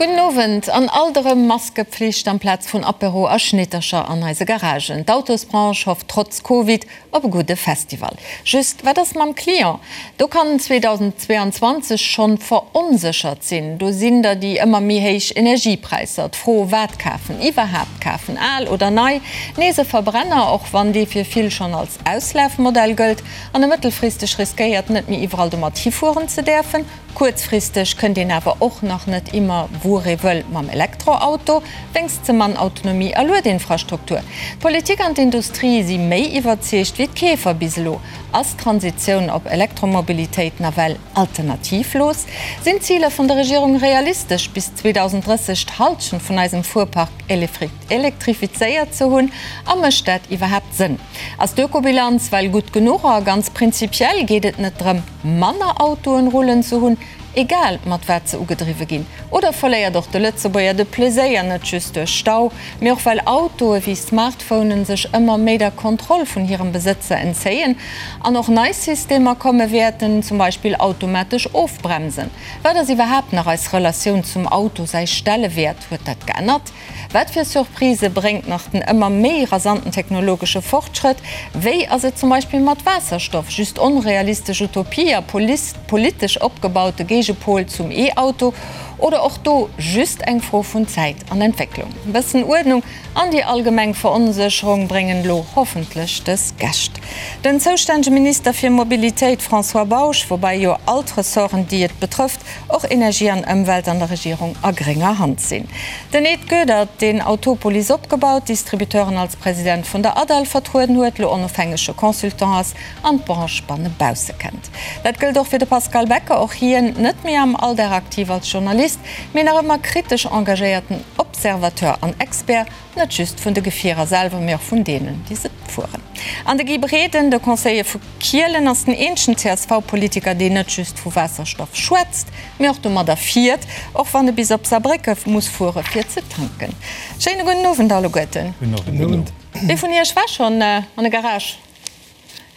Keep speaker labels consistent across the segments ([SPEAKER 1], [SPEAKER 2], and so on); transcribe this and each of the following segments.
[SPEAKER 1] Gudden Owend. An alt erëm Maskepflicht amplaz vun Apéro a Schnittercher an eise Garagen. D'Autosbranche hofft trotz Covid op e gudde Festival. Just, wat ass mam Client? Do kann 2022 schonn veronséchert sinn. Do sinn der déi ëmmer méi héich Energiepräisser, d'Fro wat kafen, iwwerhaapt kafen, al oder nei, nees e Verbrenner, och wann dee fir vill schonn als Auslafmodell gëllt, an e mëttelfristeg riskéiert net méi iwwerall domat hifueren ze däerfen. Kuerzfristeg kënnt een awer och nach net immer wuer ee wëll mam Elektroauto, wéngst ze mann Autonomie a Luedinfrastruktur. D'Politik an d'Industrie si méi iwwerzeegt wéi d'Keefer bis elo. Ass d'Transitioun op Elektromobilitéit nawell alternativlos? Sinn d'Ziler vun der Regierung realistesch, bis 2030 d'Hallschent vun eisem Fuerpark elektrifizéiert ze hunn? A mécht dat iwwerhaapt Sënn? Ass d'Ökobilanz well gutt genuch? A ganz prinzipiell geet et net drëm, manner Autoen rullen ze hunn, egal mat wat se ugedriwwe ginn? Oder verléiert och de Lëtzebuerger de Pleséier, net just duerch Stau, mee och well Autoe wéi Smartphonen sech ëmmer méi der Kontroll vun hirem Besëtzer entzéien an och nei Systemer komme wäerten, zum Beispill automatesch Ofbremsen? Wat ass iwwerhaapt nach eis Relatioun zum Auto, säi Stellewäert, huet dat geännert? Wat fir Surprisë bréngt nach den ëmmer méi rasanten technologesche Fortschrëtt? Wéi ass et zum Beispill mat Waasserstoff, just onrealistesch Utopie a politesch opgebaute Géigepol zum E-Auto oder och do just eng Fro vun Zäit an Entwécklung? E bëssen Uerdnung an déi allgemeng Veronsécherung bréngen elo hoffentlech dës Gäscht. Den zoustännege Minister fir Mobilitéit François Bausch, woubäi jo all d'Ressorten déi et betrëfft, och Energie an Ëmwelt an der Regierung a grénger Hand sinn. Den Ed Goedert, deen Autopolis opgebaut, d'Distributeuren als President vun der ADAL vertrueden huet, lo onofhängege Consultant ass an d'Branche banne bausse kennt. Dat gëllt och fir de Pascal Becker, och hien net méi am Alldag aktiv als Journalist, mee nach ëmmer kritesch engagéierten Observateur an Expert, net just vun de Gefierer selwer, mee och vun deenen, déi se fueren. An de Guy Breden, de Conseiller vu Kielen, ass den eenzegen CSV-Politiker, deen net just vu Waasserstoff schwätzt, mee och domadder fiert, och wann e bis op Saarbrécke muss fuere fir ze tanken. Schéine gudden Owend alleguerten.
[SPEAKER 2] Gudden Owend.
[SPEAKER 1] Wie vun Iech war schonn an e Garage?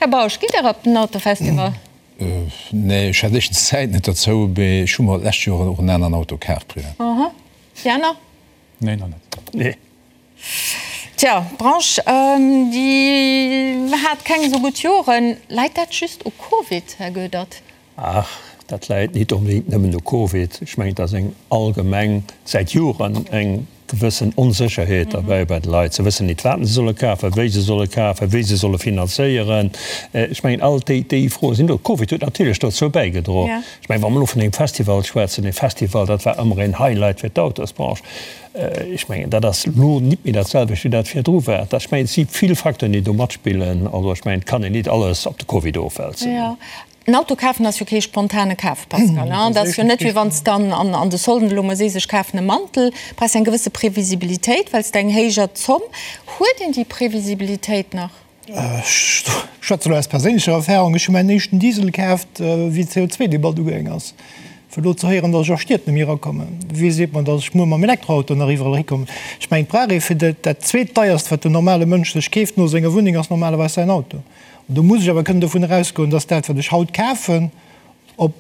[SPEAKER 1] Här Bausch, gitt Der op den Autofestival?
[SPEAKER 2] Nee, ech hat éischtens d'Zäit net derzou, mee ech hu mer d'lescht Joer och en aneren Auto kaf privat.
[SPEAKER 1] Aha. Déi aner?
[SPEAKER 3] Nee, nach net.
[SPEAKER 2] Nee.
[SPEAKER 1] Tja, d'Branche, déi hat keng esou gutt Joren. Läit dat just u Covid, Här Goedert?
[SPEAKER 4] Ach, dat läit nit onbedéngt nëmmen u Covid. Ech mengen, et ass eng allgemeng, säit Joren eng gewëssen Onsécherheet derbäi bei de Leit. Se wëssen nit, wat se solle kafen, wéi se solle kafen, wéi se solle finanzéieren. Ech mengen, all déi, déi Froe sinn do. Covid huet natierlech dozou bäigedroen. Ech mengen, wa mer elo vun engem Festival schwätzen, e Festival, dat war ëmmer een Highlight fir d'Autosbranche. Ech mengen, dat ass elo nit méi dat selwecht, wéi dat virdru war. Dat, ech mengen, et si vill Facteuren, déi do matspillen. Also ech mengen, et kann een nit alles op de Covid ofwälzen.
[SPEAKER 1] Jo, en Auto kafen ass jo kee spontane Kaf, Pascal, hein? Dat ass jo net, wéi wann s de an an de Solden elo mol sees, ech kafen e Mantel. Brauchs eng gewësse Previsibilitéit, well s de eng héijer Zomm. Huet een déi Previsibilitéit nach?
[SPEAKER 5] Ech schwätze elo aus perséinlecher Erfahrung, Ech hu mäin éischten Diesel kaaft, wéi d'CO2-Debatt ugaang ass. Fir elo ze héieren, datt ech a Stied net méi erakommen. Wie seet mer, datt ech muer mam Elektroauto nach iwwerall erikommen? Ech mengen, et brauch ee fir dat, dat zweetdeierst, wat den normale Mënsch sech keeft no senger Wunneng, ass normalerweis säin Auto. An do muss ech awer kënnen dovun erausgoen, datt dat, wat ech haut kafen, op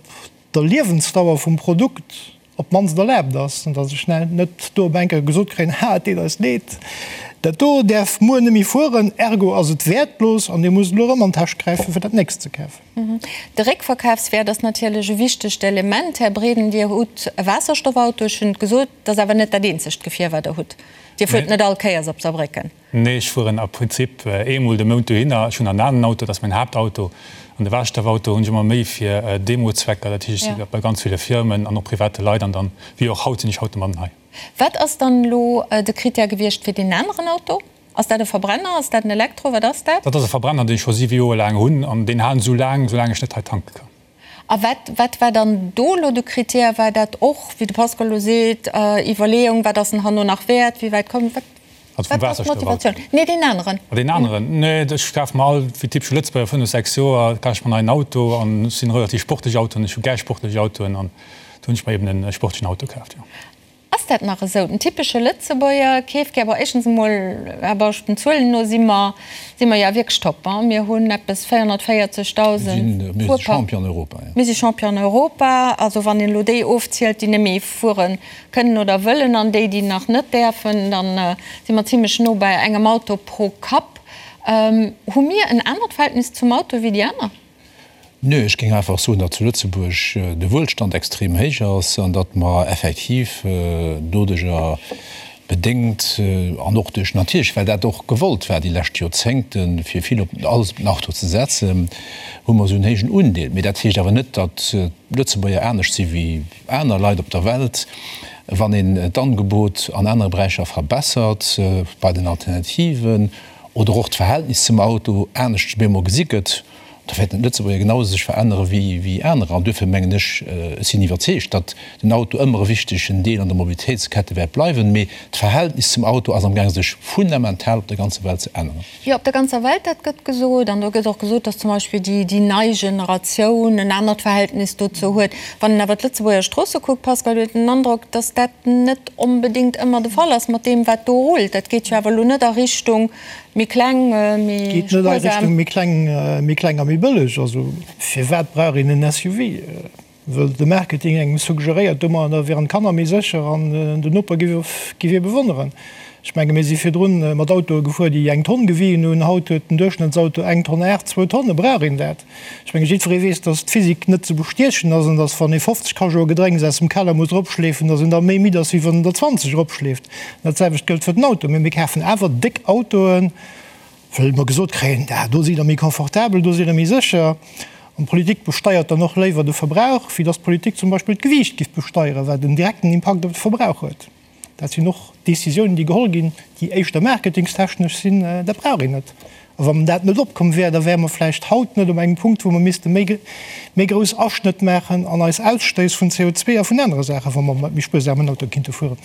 [SPEAKER 5] der Liewensdauer vum Produkt op d'mannst erlaabt ass, an datt ech net do op eng Kéier gesot kréien, Ha, et deet eis leed, dat do däerf muer net méi fueren, ergo ass et wäertlos an Dir musst elo erëm an d'Täsch gräifen, fir dat nächst ze kafen.
[SPEAKER 1] De Réckverkafswäert ass natierlech e wichtegt Element. Här Breden, Dir hutt e Waasserstoffauto, ech hunn et gesot, dat ass awer net dat eenzegt Gefier, wat Der hutt. Dir fuert net all Kéiers op Saarbrécken.
[SPEAKER 3] Nee, ech fueren a Prinzip eemol de Mount dohinner. Ech hunn en aneren Auto, dat ass mäin Haaptauto. An de Waasserstoffauto hunn ech ëmmer méi fir Demo-Zwecker. Dat heescht, ech si bei ganz ville Firmen an och private Leit an dann, wéi och haut, sinn ech haut de Mann hei.
[SPEAKER 1] Wat ass dann elo de Critère gewiescht fir deen aneren Auto? Ass dat e Verbrenner? Ass dat en Elektro? Wat ass dat?
[SPEAKER 3] Dat ass e Verbrenner, deen ech scho siwe Joer laang hunn an deen halen esou laang, soulaang ech net hei tanke kann.
[SPEAKER 1] A wat, wat war dann do elo de Critère? War dat och, wéi de Pascal elo seet, Iwwerleeung, wat ass en herno nach wäert, wéi wäit kommt, wat,
[SPEAKER 3] Also vum
[SPEAKER 1] wat war
[SPEAKER 3] Waasserstoffauto?
[SPEAKER 1] d'Motivatioun? Nee, deen aneren.
[SPEAKER 3] Ah, deen aneren? Nee, ech kafe mer all, wéi typesche Lëtzebuerger, fënnef, sechs Joer kaf ech mer en neien Auto an ech sinn relativ sportlech Autoen, ech hu gär sportlech Autoen an do hunn ech mer eben e sportlechen Auto kaaft, jo.
[SPEAKER 1] Ass. Ass dat nach esou? Den typesche Lëtzebuerger keeft gär, bon éischtens emol, Här Bausch, den Zuelen no si mer, si mer jo wierklech top, hein, mir hunn eppes 440.000
[SPEAKER 2] Mir si Champion an Europa, jo.
[SPEAKER 1] Mir si Champion an Europa, also wann een elo déi ofzielt, déi net méi fuere kënnen oder wëllen an déi, déi nach net däerfen, da si mer zimlech no bei engem Auto pro Kapp. Hu mir en anert Verhältnis zum Auto wéi déi aner?
[SPEAKER 2] Nö, ech géing einfach soen, datt zu Lëtzebuerg de Wuelstand extrem héich ass an datt mer effektiv doduerjer bedéngt an och duerch natierlech, well dat och gewollt war déi lescht Joerzéngten, fir vill op alles op den Auto ze setzen, hu mer esou en héijen Undeel. Mee dat heescht awer net, datt d'Lëtzebuerger anescht si wéi aner Leit op der Welt. Wann een d'Angebot an anere Beräicher verbessert, bei den Alternativen oder och d'Verhältnis zum Auto anescht op eemol gesi gëtt, Da wäerten d'Lëtzebuerger genau esou sech verännere wéi anerer. An duerfir mengen ech, ech sinn iwwerzeegt, datt den Auto ëmmer e wichtegen Deel an der Mobilitéitskette wäert bleiwen. Mee d'Verhältnis zum Auto ass amgaang sech fundamental op der ganzer Welt ze änneren.
[SPEAKER 1] Jo, op der ganzer Welt, dat gëtt gesot. An do gëtt och gesot, datt zum Beispill déi nei Generatioun en anert Verhältnis dozou huet. Wann een awer d'Lëtzebuerger Stroosse kuckt, Pascal, huet een den Androck, datt dat net onbedéngt ëmmer de Fall ass mat deem, wat do rullt. Dat geet jo awer elo net a Richtung Méi kleng, méi
[SPEAKER 5] Geet net a Richtung méi kleng, méi kleng a méi bëlleg. Also firwat brauch een en SUV? Wëll de Marketing engem suggeréiert, domadder wieren d'Kanner méi sécher an den Noper giff ee bewonneren. Ech menge mir si virdrun mat Autoe gefuer, déi eng Tonn gewien hunn. Haut huet den Duerchschnëttsauto eng Tonn 8, zwou Tonne. Brauch een dat? Ech menge jiddweree weess, datt d'Physik net ze bestiechen ass an datt wann ee 50 Cajoe Gedrénks aus dem Keller muss eropschleefen, datt een da méi midd ass, wéi wann een der 20 eropschleeft. Dat selwecht gëllt fir den Auto. Mee mir kafen awer déck Autoen, wëll mer gesot kréien, ah do sidd Der méi confortabel, do sidd Der méi sécher. An d'Politik besteiert dann och léiwer de Verbrauch, wéi datt d'Politik zum Beispill d'Gewiicht giff besteieren, wat en direkten Impakt op de Verbrauch huet. Dat sinn och Décisiounen, déi geholl ginn, déi éischter marketingstechnesch sinn. Dat brauch een net. A wann dat net opkomm wär, da wäre mer vläicht haut net op engem Punkt, wou mer misste méi, méi grouss Aschnëtt maachen an eis Ausstéiss vun CO2 a vun anere Saachen, wa mer mat méi spuersamen Autoe kinnte fueren.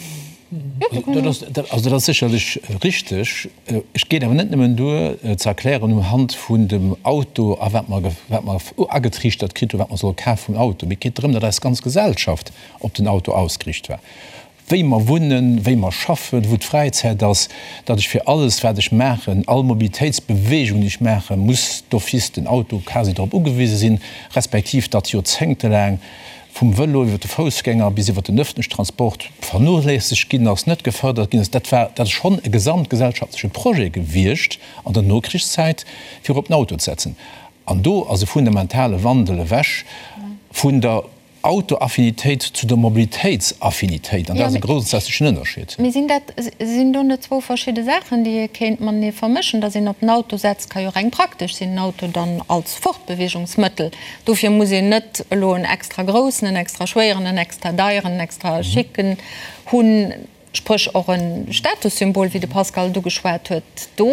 [SPEAKER 2] Dat ass, also dat ass sécherlech richteg. Ech geet awer net nëmmen duer ze erklären um Hand vun dem Auto a wat mer, wat mer agetriichtert kritt hunn, wat mer solle kafe vum Auto. Mee et geet drëm, datt eis ganz Gesellschaft op den Auto ausgeriicht war. Wéi mer wunnen, wéi mer schaffen, wou d'Fräizäit ass, datt ech fir alles, wat ech maachen, all Mobilitéitsbewegung, déi ech maachen, muss d'office den Auto quasi drop ugewise sinn, respektiv datt joerzéngtelaang vum Vëlo iwwer de Foussgänger bis iwwer den öffentlichen Transport vernoléissegt ginn ass, net gefërdert ginn ass. Dat war, dat ass schonn e gesamtgesellschaftleche Projet gewiescht an der Nokrichszäit, fir op den Auto ze setzen. An do ass e fundamentale Wandel ewech vun der Autoaffinitéit zu der Mobilitéitsaffinitéit, an dat ass e grondsätzlechen Ënnerscheed.
[SPEAKER 1] Mee sinn dat, sinn do net zwou verschidde Saachen, déi ee kéint matenee vermëschen? Datt een op den Auto setzt, ka jo reng praktesch sinn, den Auto dann als Fortbeweegungsmëttel. Dofir muss een net elo en extra groussen, en extra schwéieren, en extra deieren, en extra schicken hunn, spréch och e Statussymbol, wéi de Pascal et ugeschwat huet do.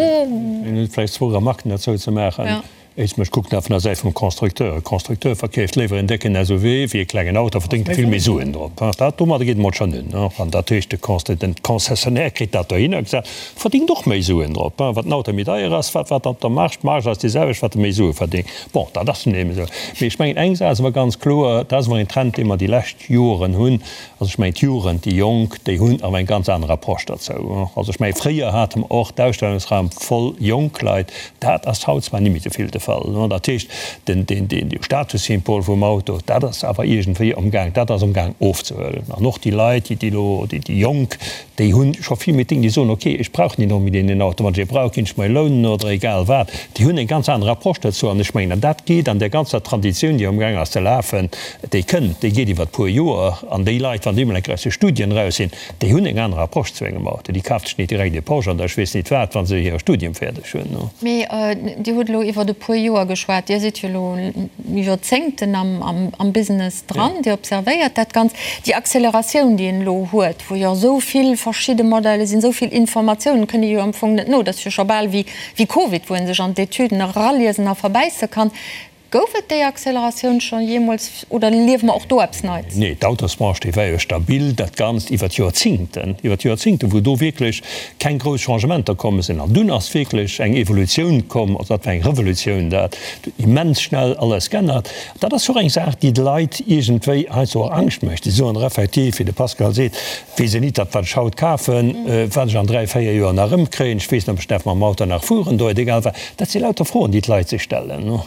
[SPEAKER 4] Vläicht zwou Remarken derzou ze maachen. Éischtens, ech kucken dat vun der Säit vum Constructeur. E Constructeur verkeeft léiwer en décken SUV wéi e klengen Auto, verdéngt e vill méi Suen drop. Dat, domadder geet emol schonn un. An dat heescht, de Constru-, den Concessionnaire kritt dat dohinner gesat, verdéngt och méi Suen drop. Wat den Auto méi deier ass, wat, wat op der Marge, d'Marge ass déi selwecht, wat e méi Sue verdéngt. Bon, dat ass nun eben esou. Mee ech mengen, eng Saach ass awer ganz kloer, dat ass awer en Trend, dee mer déi lescht Joren hunn, Also ech mengen d'Jugend, déi Jonk, déi hunn awer eng ganz aner Approche derzou. Also ech mengen fréier hate mer och d'Ausstellungsraum voll jonk Leit, dat ass haut zwar nimmi esou vill de Fall. Dat heescht, den, den, den Statussymbol vum Auto, dat ass awer iergendwéi amgaang, dat ass amgaang ofzehuelen. An och déi Leit, déi, déi elo, déi, déi Jonk, déi hu scho vill méi Ding, déi soen, ok, ech brauch net onbedéngt een Auto, wann ech ee brauch, ginn ech mer ee lounen oder egal wat. Déi hunn eng ganz aner Approche dozou an ech mengen, an dat geet an där ganzer Traditioun, déi amgaang ass ze lafen, Déi kënnt, déi geet iwwert puer Joer. An déi Leit, wann déi emol eng Kéier aus de Studien eraus sinn, déi hunn eng aner Approche zu engem Auto. Déi kaft sech nit direkt ee Porsche an der ech weess nit wat, wa se hire Studium fäerdeg hunn.
[SPEAKER 1] Mee Dir hutt elo iwwert e puer Joer geschwat. Dir sidd jo elo Joerzéngten am Business dran. Dir observéiert dat Ganzt. Déi Acceleratioun, déi een elo huet, wou jo esou vill verschidde Modelle sinn, esou vill Informatiounen, kënnt ee jo am Fong net no. Dat ass jo scho bal wéi Covid, wou ee sech an d'Etüden eraliesen a verbäisse kann. Gouf et déi Acceleratioun scho jeemools oder liewe mer och do eppes Neits?
[SPEAKER 4] Nee, d'Autosbranche, déi war jo stabil dat Ganzt iwwer d'Joerzingten, iwwer d'Joerzingten, wou do wierklech keng grouss Changementer komm sinn. An dunn ass wierklech eng Evolutioun komm, also dat war eng Revolutioun, dat huet immens schnell alles g'ännert. Dat ass och eng Saach, déi de Leit iergendwéi heiansdo och Angscht mécht. Déi soen effektiv, wéi de Pascal seet, Weess een nit, datt wat ech haut kafen, wat ech an 3, 4 Joer nach erëmkréien. Ech weess net, ob ech däerf mam Auto nach fueren do, et egal wat. Dat si lauter Froen, déi d'Leit sech stellen.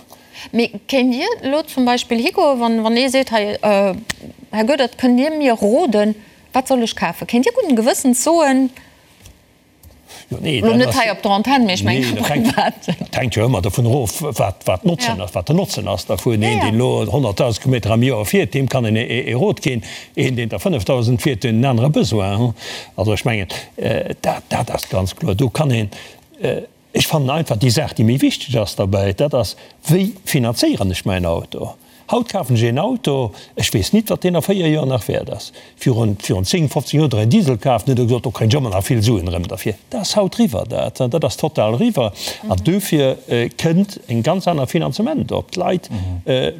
[SPEAKER 1] Mee kéint Dir elo zum Beispill higoen, wann, wann ee seet, hei, Här Goedert, kënnt Dir mir roden, wat soll ech kafen? Kéint Dir gudden Gewëssens soen, Elo net hei op der Antenn, mee ech mengen am Privaten.
[SPEAKER 4] Dat hänkt jo ëmmer dovun erof, wat d'Notzen ass, wat den Notzen ass dervun. Een, deen elo 100.000 Kilometer am Joer fiert, deem kann een e Rot ginn. Een, deen der 5.000 fiert, huet en anere Besoin. Also ech mengen, dat, dat ass ganz kloer. Do kann een, ech fannen einfach déi Saach, déi méi wichteg ass derbäi, dat ass, Wéi finanzéieren ech mäin Auto? Haut kafen ech een Auto, ech weess nit, wat deen a 4 Joer nach wäert ass. Virun, virun 10, 15 Joer huet der een Diesel kaf, dann huet der gesot, do kréien ech ëmmer nach vill Suen erëm derfir. Dat ass haut riwwer, dat, dat ass total riwwer. An dofir kënnt en ganz aner Finanzement op. D'Leit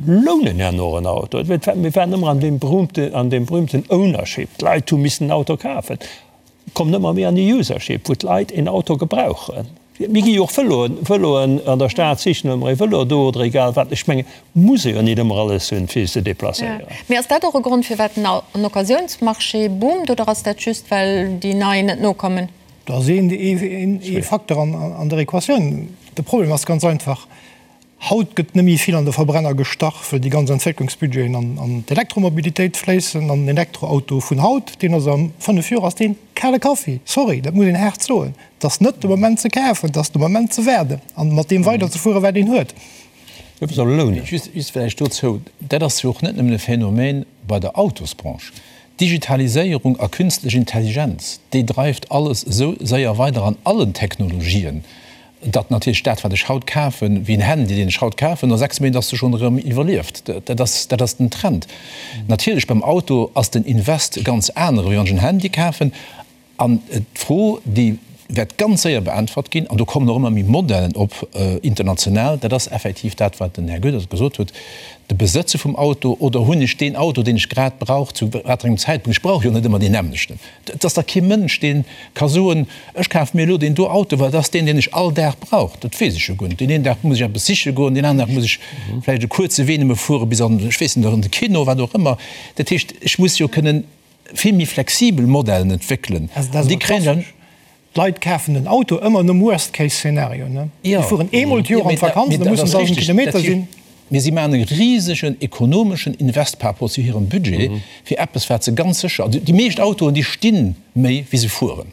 [SPEAKER 4] lounen herno en Auto. Mir waren ëmmer an deem berühmte, an deem berühmten Ownership. D'Leit hu missen en Auto kafen. Kommen ëmmer méi an déi Usership, wou d'Leit een Auto gebrauchen. Mir gi jo och Vëloen, Vëloen an der Stad sichen ëmmer ee Vëlo do oder egal wat. Ech mengen, muss ee jo nit ëmmer alles hunn, fir sech ze deplacéieren.
[SPEAKER 1] Mee ass dat och e Grond, firwat den Occasiounsmarché boomt, oder ass dat just, well déi nei net nokommen?
[SPEAKER 5] Dat ass ee Facteur an der Equatioun. De Problem ass ganz einfach, Haut gëtt net méi vill an de Verbrenner gestach, well déi ganz Entwécklungsbudgeten an d'Elektromobilitéit fléissen. An den Elektroauto vun haut, deen ass a 5 Joer ass dee kale Kaffi. Sorry, dat muss een haart soen. Et ass net de Moment ze kafen, et ass de Moment ze waarden an mat deem weiderzefueren, wat een huet.
[SPEAKER 2] Just vläicht dozou, Dat ass jo och net nëmmen e Phänomen bei der Autosbranche. D'Digitaliséierung a künstlech Intelligenz, déi dreift alles esou séier weider an allen Technologien, Datt natierlech dat, wat ech haut kafen, wéi en Handy, deen ech haut kafen, no 6 Méint ass e schonn erëm iwwerlieft. Dat ass, dat ass den Trend. Natierlech beim Auto ass den Invest e ganz anere wéi wann ech en Handy kafen. An d'Fro, déi wäert ganz séier beäntwert ginn, an do kommen och ëmmer méi Modellen op international, dat ass effektiv dat, wat den Här Goedert gesot huet, de Besëtze vum Auto oder hunn ech deen Auto, deen ech grad brauch, zu wat engem Zäitpunkt. Ech brauch jo net ëmmer deen nämmlechten. Et ass da kee Mënsch, dee ka soen, ech kafe mir elo deen do Auto, well dat ass deen, deen ech all Dag brauch. Dat weess ech jo guer net. Deen een Dag muss ech eppes siche goen, deen aneren Dag muss ech vläicht e kuerze Wee nëmme fuere bis an, ech weess net, an de Kino, wat och ëmmer. Dat heescht, ech muss jo kënnen vill méi flexibel Modellen entwéckelen.
[SPEAKER 5] An déi kréien dann. D'Leit kafen den Auto ëmmer nom Worst-Case-Szenario. Déi fueren eemol d'Joer an d'Vakanz, da mussen 1.000 Kilometer sinn.
[SPEAKER 2] Mee si maachen e risegen ekonomeschen Invest par rapport zu hirem Budget fir eppes, wat se ganz sécher, also déi meescht Autoen, déi sti méi wéi se fueren,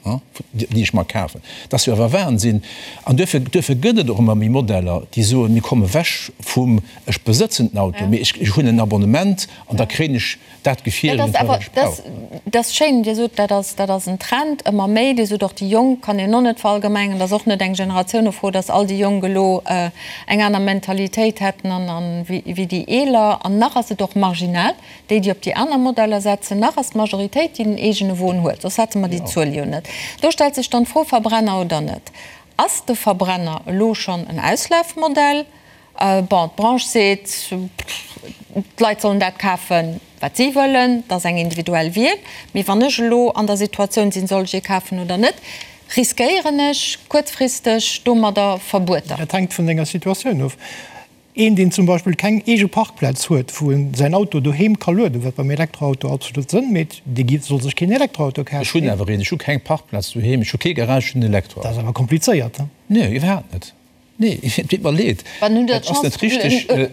[SPEAKER 2] déi ech mer kafen. Dat ass jo awer Wahnsinn. An duerfir, duerfir gëtt et och ëmmer méi Modeller, déi soen, mir komme wech vum ech besëtzen den Auto, mee ech hunn en Abonnement an da kréien ech dat Gefier
[SPEAKER 1] Dat ass awer, dat, dat ass schéin, Dir sot, dat ass, dat ass en Trend, ëmmer méi. Dir sot och, déi Jonk kann een och net verallgemengen. Dat ass och net eng Generatiounefro, datt all déi Jonk elo eng aner Mentalitéit hätten an, an wéi, wéi déi Eeler. An nach ass et och marginal, déi, déi op déi aner Modeller setzen. Nach ass d'Majoritéit, déi den eegene Won huet, soss hätte mer déi Zuel jo net. Do stellt sech dann d'Fro, Verbrenner oder net? Ass de Verbrenner elo schonn en Auslafmodell? Bon, d'Branche seet, d'Leit sollen dat kafen, wat si wëllen, dat ass eng individuell Wiel. Mee wann ech elo an der Situatioun sinn, soll ech ee kafen oder net, riskéieren ech kuerzfristeg domadder Verbueter.
[SPEAKER 5] Dat hänkt vun denger Situatioun of. Een, deen zum Beispill keng eege Parkplaz huet, wou en säin Auto doheem ka lueden, wat beim Elektroauto absolut Sënn mécht, dee soll sech keen Elektroauto kafen.
[SPEAKER 2] Ech hunn awer een. Ech hu keng Parkplaz doheem, ech hu kee Garage, ech hunn en Elektroauto.
[SPEAKER 5] Dat ass awer komplizéiert.
[SPEAKER 2] Nee, iwwerhaapt net. Nee, et deet mer leed.
[SPEAKER 1] Wann hunn der d'Chance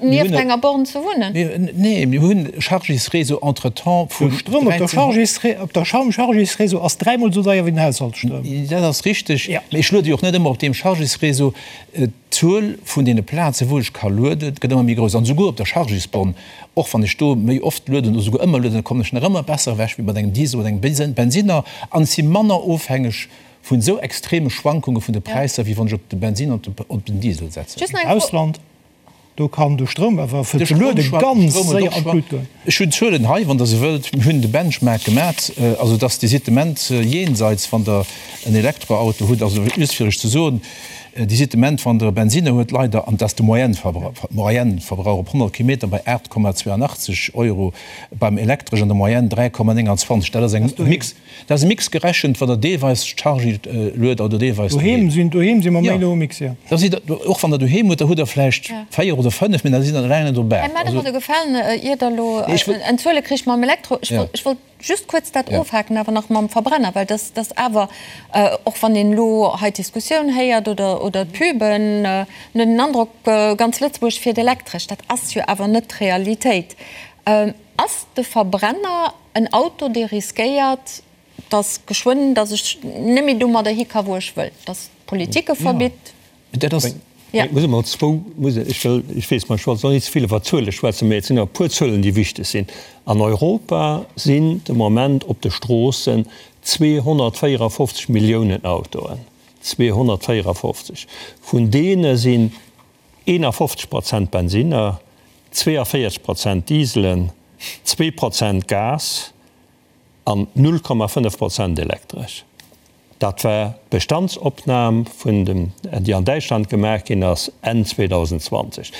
[SPEAKER 1] nieft enger Born ze wunnen?
[SPEAKER 2] Nee, mir hunn Chargésréseau entretemps
[SPEAKER 5] vun. De Stroum op der Chargésré op der Chargésréseau ass dräimol esou deier wéi den Haushaltsstroum.
[SPEAKER 2] Dat ass richteg, mee ech luede jo och net ëmmer op deem Chargésréseau. D'Zuel vun deene Plazen, wou ech ka lueden, gëtt ëmmer méi grouss. An esouguer op der Chargésborn, och wann ech do méi oft lueden oder esouguer ëmmer lueden, da kommen ech nach ëmmer besser ewech wéi mat engem Diesel oder engem Bensinner an ech si manner ofhängeg Vun esou extreme Schwankunge vun de Präisser, wéi wann ech op de Bensin an op den Diesel setzen.
[SPEAKER 5] Am Ausland, do kann de Stroum awer fir ze luede ganz séier an d'Lut goen.
[SPEAKER 2] Ech hunn d'Zuelen hei, wann Der se wëllt. Mir hunn de Benchmark gemat, also et ass de Sitement jenseits, wann Der en Elektroauto hutt. Also just fir Iech ze soen. Dir sidd de Moment, wann Der e Bensinner huet, leider, an dat ass de Moyenne-Verbrauch op 100 Kilometer, bei 8,82 Euro, beim Elektresch an der Moyenne 3,29. Dat ass eng Mix, dat ass e Mix gerechent, wann Der deelweis Chargy luet oder deelweis
[SPEAKER 5] doheem. Doheem si mer méi no um Mix, jo.
[SPEAKER 2] Da sidd Der, och wann Der doheem hutt, da hutt Der vläicht 4 oder 5, mee da sidd Der eleng net op 8.
[SPEAKER 1] Här Medem, huet Der gefalen, ier Der elo en Zuele kricht mam Elektro. Ech wollt Just kuerz dat ofhaken awer nach mam Verbrenner, well dass dass awer, och wann een elo hei d'Diskussioun héiert oder oder d'Puben, en huet den Androck, ganz Lëtzebuerg fiert elektresch. Dat ass jo awer net d'Realitéit. Ass de Verbrenner en Auto, dee riskéiert, dass geschwënn, dass ech net méi domadder hi ka wou ech wëll, dass d'Politik e verbitt?
[SPEAKER 2] Dat ass.
[SPEAKER 4] Ja. Ech muss emol zwou, muss ech wëll, ech weess, mä ech wollt net ze vill iwwer Zuele schwätzen, mä et sinn awer e puer Zuelen, déi wichteg sinn. An Europa sinn de Moment op de Stroossen 254 Milliounen Autoen. 254! Vun deene sinn 51 Prozent Bensinner, 42 Prozent Dieselen, zwee Prozent Gas an 0,5 Prozent elektresch. Dat war d'Bestandsopnam vun dem, déi an Däitschland gemaach ginn ass Enn 2020.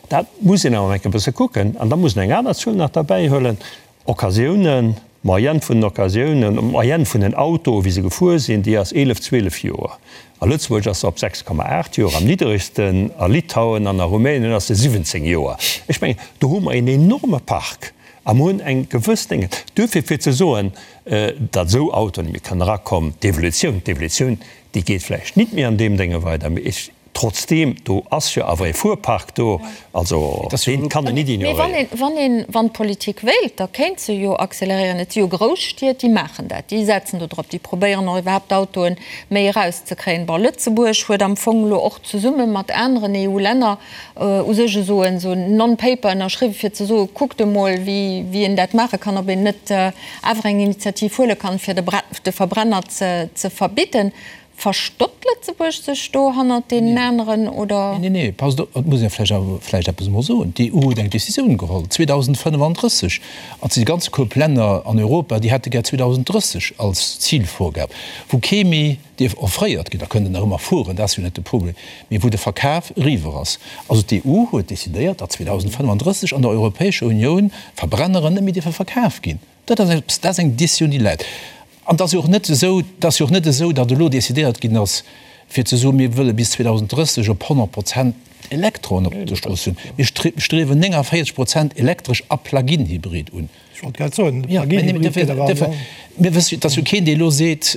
[SPEAKER 4] Dat muss een awer eng Kéier e bësse kucken. An da muss een eng aner Zuel nach derbäihuelen, Occasiounen, d'Moyenne vun den Occasiounen, d'Moyenne vun den Autoen, wéi se gefuer sinn, déi ass 11, 12 Joer. A Lëtzebuerg ass se op 6,8 Joer am nidderegsten, a Litauen an a Rumänien ass se 17 Joer. Ech mengen, do hu mer een enorme Park a mer hunn eng gewëss Dénge. Duerfir, fir ze soen, datt esou Autoen net méi kënnen erakommen, d'Evolutioun, d'Evolutioun, déi geet vläicht nit méi an deem Dénge weider, mee ech, trotzdeem, do ass jo awer e Fuerpark do, also deen kann een nit
[SPEAKER 1] ignoréieren. Mee wann een, wann d'Politik wéilt, da kéint se jo acceleréieren. Et si jo grouss Stied, déi maachen dat, déi setzen do drop, déi probéieren och iwwerhaapt d'Autoen méi erauszekréien. Bon, Lëtzebuerg huet am Fong elo och zesumme mat aneren EU-Länner u sech esou en esou en Non-Paper ënnerschriwwen, fir ze soen, kuckt emol, wéi, wéi een dat maache kann, ob een net awer eng Initiativ huele kann, fir de de Verbrenner ze, ze verbidden. Verstoppt Lëtzebuerg sech do hannert deenen aneren, oder?
[SPEAKER 2] Nee, nee, passt op, et muss ee vläicht awer vläicht eppes emol soen, D'EU huet eng Décisioun geholl, 2035, an déi ganz Koup Länner an Europa, déi hätte gär 2030 als Zilvorgab, wou kee méi dierf offréiert ginn, da kënnt en nach ëmmer fueren, dat ass jo net de Problem, mee wou de Verkaf eriwwer ass. Also d'EU huet decidéiert, datt 2035 an der Europäescher Unioun Verbrenneren net méi dierfe verkaf ginn. Dat ass eppes, dat ass eng Décisioun, déi läit. An et ass jo och net esou, et ass jo och net esou, datt elo decidéiert ginn ass, fir ze soen, mir wëlle bis 2030 op 100 Prozent Elektroen op de Strooss hunn. Mir striewen 49 Prozent elektresch a Plug-in-Hybrid un.
[SPEAKER 5] Ech wollt grad soen, de Plug-in-Hybrid gëtt awer
[SPEAKER 2] an. Mir wëssen, et ass jo keen, dee elo seet,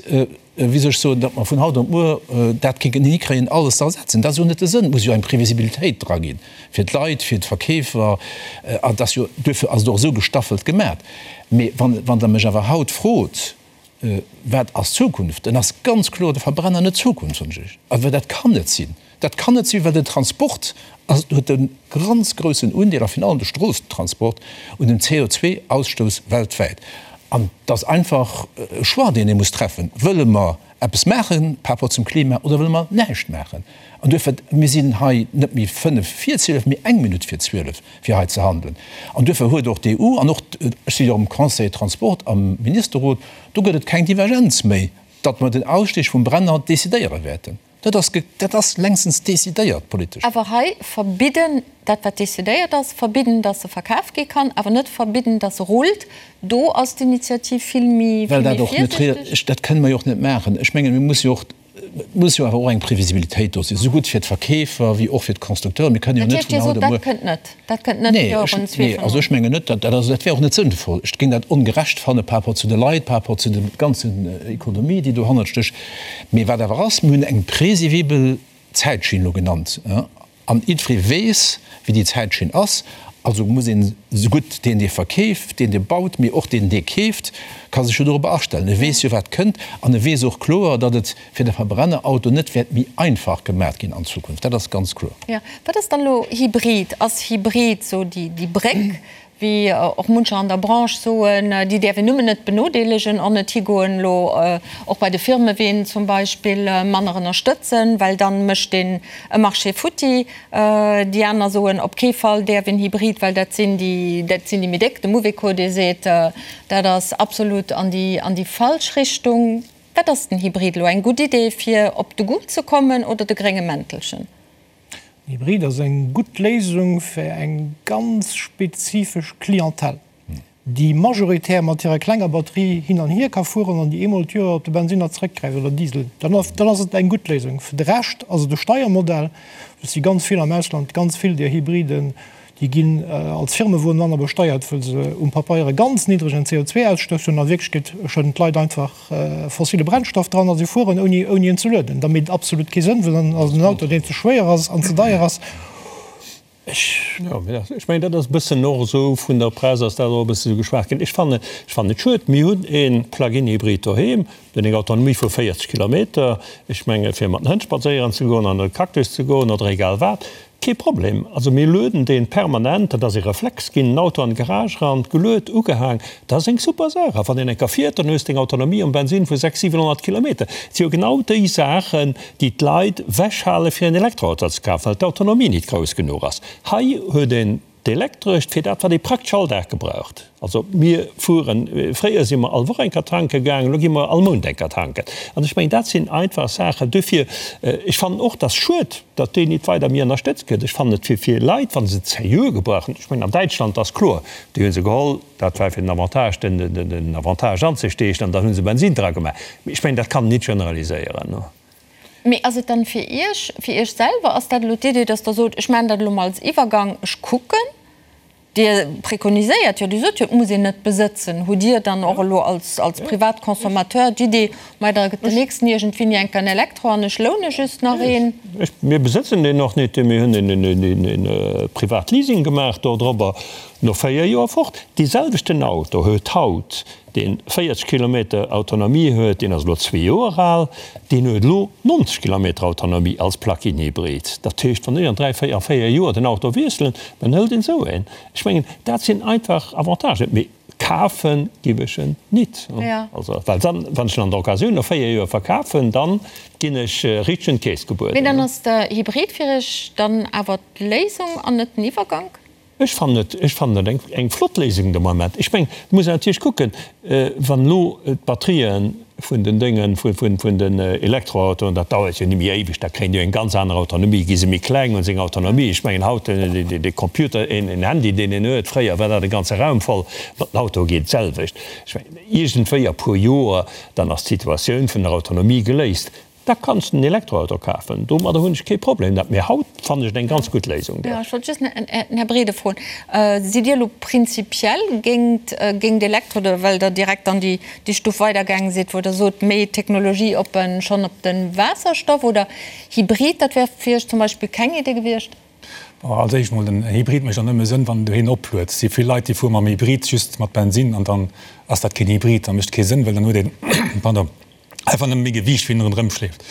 [SPEAKER 2] wéi soll ech soen, datt mer vun haut op muer dat kéinten hikréien, alles ze ersetzen. Dat ass jo net de Sënn. Et muss jo eng Previsibilitéit dra ginn, fir d'Leit, fir d'Verkeefer. An et ass jo, duerfir ass et och esou gestaffelt gemat. Mee wann, wann Der mech awer haut frot, Wat ass d'Zukunft, dann ass ganz kloer de Verbrenner net d'Zukunft, soen ech Iech. Awer dat kann net sinn. Dat kann net sinn, well den Transport ass, huet e ganz groussen Undeel, a virun allem de Stroossentransport, un dem CO2-Ausstouss weltwäit. An et ass einfach e Choix, deen ee muss treffen, Wëlle mer eppes maache par rapport zum Klima oder wëlle mer näischt maachen? An duerfir, mir sinn hei net méi fënnef vir 12, mee eng Minutt vir 12, fir hei ze handelen. An duerfir huet och d'EU an och, ech si jo am Conseil Transport am Ministerrot, do gëtt et keng Divergenz méi, datt mer den Ausstieg vum Brenner decidéiere wäerten. Dat ass, dat ass längstens decidéiert politesch.
[SPEAKER 1] Awer hei verbidden, dat wat decidéiert ass, verbidden, dass se verkaf gi kann, awer net verbidden, dass se rullt, do ass d'Initiativ vill méi,
[SPEAKER 2] vill méi virsiichteg. Dat kënne mer jo och net maachen. Ech mengen, mir musse jo och, et muss jo awer och eng Previsibilitéit do sinn, esou gutt fir d'Verkeefer wéi och fir d'Constructeuren. Mir kënnen jo
[SPEAKER 1] net vun haut op muer. Dat heescht, Dir sot, dat kënnt net? Dat kënnt net virun
[SPEAKER 2] 2025? Nee, also ech mengen net, dat dat wär och net sënnvoll. Ech géing dat ongerecht fanne par rapport zu de Leit, par rapport zu der ganzen Ekonomie, déi dohannert stécht. Mee wat awer ass, mir hunn eng presivibel Zäitschinn elo genannt, an jiddweree weess, wéi déi Zäitschinn ass. Also muss een esougutt deen, dee verkeeft, deen, dee baut, mee och deen, dee keeft, ka sech jo dorobber astellen. E weess jo, wat kënnt, an e weess och kloer, datt et fir de Verbrennerauto net wäert méi einfach gemat ginn an Zukunft. Dat ass ganz kloer.
[SPEAKER 1] Jo, wat ass dann elo Hybrid? Ass Hybrid esou déi Bréck, wéi och muncher an der Branche soen, déi däerf een nëmmen net benodeelegen an net higoen elo och bei de Firmeween zum Beispill manner ënnerstëtzen, well dann mécht een e Marché futti. Déi aner soen, op kee Fall däerf een Hybrid, well dat sinn déi, dat sinn déi méi déck. De Mouveco, dee seet, dat ass absolut an déi, an déi falsch Richtung. Wat ass den Hybrid elo? Eng gutt Idee fir op de Goût ze kommen oder de grénge Mäntelchen?
[SPEAKER 5] Den Hybrid ass eng gutt Léisung fir eng ganz spezifesch Clientèle, déi majoritär mat hirer klenger Batterie hin an hier ka fueren an déi eemol d'Joer op de Bensinner zeréckgräift oder Diesel. Dann ass et eng gutt Léisung. Fir de Rescht ass et e Steiermodell. Et si ganz vill am Ausland, ganz vill där Hybriden, Déi ginn als Firmewon manner besteiert, wëll se um Papeier e ganz niddregen CO2-Ausstouss hunn. A Wierklechkeet schëdden d'Leit einfach fossile Brennstoff dran a si fueren, ouni ouni en ze lueden. Da mécht et absolut kee Sënn, well dann ass et en Auto, deen ze schwéier ass an ze deier ass.
[SPEAKER 4] Ech, jo, ech mengen, dat ass e bëssen och esou vun der Press ass dat och e bësse esou geschwat ginn. Ech fannen, ech fannen et schued. Mir hunn e Plug-in-Hybrid doheem. Deen eng Autonomie vu 40 Kilometer. Ech menge fir mat den Hënn spadséieren ze goen, an e Cactus ze goen oder egal wat, kee Problem. Also mir lueden deen permanent, dat ass e Reflex ginn, den Auto an d'Garage eran, geluet, ugehaang, dat ass eng super Saach. A wann een eng Kéier fiert, dann hues de eng Autonomie um Bensin vu 600, 700 Kilometer. Et si jo genau déi Saachen, déi d'Leit wechhale fir en Elektroauto ze kafen, well d'Autonomie nit grouss genuch ass. Hei huet een D'Elektrescht fir dat, wat ee praktesch all Dag gebraucht. Also mir fueren, fréier si mer all Woch eng Kéier tanke gaangen, elo gi mer all Mount eng Kéier tanken. An ech mengen, dat sinn einfach Saachen. Duerfir, ech fannen och, dass schued, datt deen nit weider méi ënnerstëtzt gëtt. Ech fannen et fir, fir Leit, wa se et seriö gebrauchen, ech mengen an Däitschland ass kloer, déi hu se geholl, dat war fir den Avantage, den, den Avantage anzesteechen an dann hu se Bensin dra gemaach. Mee ech mengen, dat kann een nit generaliséieren.
[SPEAKER 1] Mee ass et dann fir Iech, fir Iech selwer, ass dat elo d'Idee, dass Der sot, ech maachen dat elo mol als Iwwergang, ech kucken? Dir prekoniséiert jo, Dir sot jo, et muss een net besëtzen. Hutt Dir dann och elo als, als Privatconsommateur d'Idee, mei da gëtt den nächsten iergendwéini enk en Elektro an ech loune just nach een?
[SPEAKER 4] Ech, mir besëtzen deen och net, mir hunn en, en, en Privatleasing gemaach dodrobber, no 4 Joer fort. Dee selwechten Auto huet haut deen 40 Kilometer Autonomie huet, deen ass elo zwee Joer al, deen huet elo 90 Kilometer Autonomie als Plug-in-Hybrid. Dat heescht, wann ech an dräi, véier, a véier Joer den Auto wiesselen, dann hëlt een esou een. Ech mengen, dat sinn einfach Avantagen. Mee kafe giff ech en nit. Also, well dann, wann ech en an der Occasioun no véier Joer verkafen, dann ginn ech richteg un d'Keess gebueden.
[SPEAKER 1] Mee dann ass de Hybrid fir Iech dann awer d'Léisung an net den Iwwergank?
[SPEAKER 4] Ech fannen et, ech fannen et eng, eng flott Léisung de Moment. Ech mengen, et muss een natierlech kucken, wann elo d'Batterië vun den Déngen, vun, vun, vun den Elektroautoen, dat dauert jo ni méi éiweg, da kréien déi jo eng ganz aner Autonomie, gi se méi kleng, hunn se eng Autonomie. Ech mengen haut, de Computer, een, een Handy, deen een huet, fréier war dat e ganze Raum voll, mat den Autoe geet et d'selwecht. Ech mengen, iergendwéi a puer Joer, dann ass d'Situatioun vun der Autonomie geléist. Da kanns de en Elektroauto kafen, domadder hunn ech kee Problem. Dat, mee haut fannen ech et eng ganz gutt Léisung.
[SPEAKER 1] Jo, ech wollt just den Här Brede froen, Sidd Dir elo prinzipiell géint géint Elektro, oder well Der direkt dann déi déi Stuf weidergaange sidd, wou Der sot, méi technologieoppen schonn op de Waasserstoff oder Hybrid, dat wär fir Iech zum Beispill keng Idee gewiescht?
[SPEAKER 3] Bon, als éischt mol, den Hybrid mécht och nëmme Sënn, wann en doheem opluet. Et si vill Leit, déi fuere mam Hybrid just mat Bensin an dann ass dat keen Hybrid, da mécht kee Sënn, well dann huet een, pardon, einfach nëmme méi Gewiicht, wéi en ronderëm schleeft.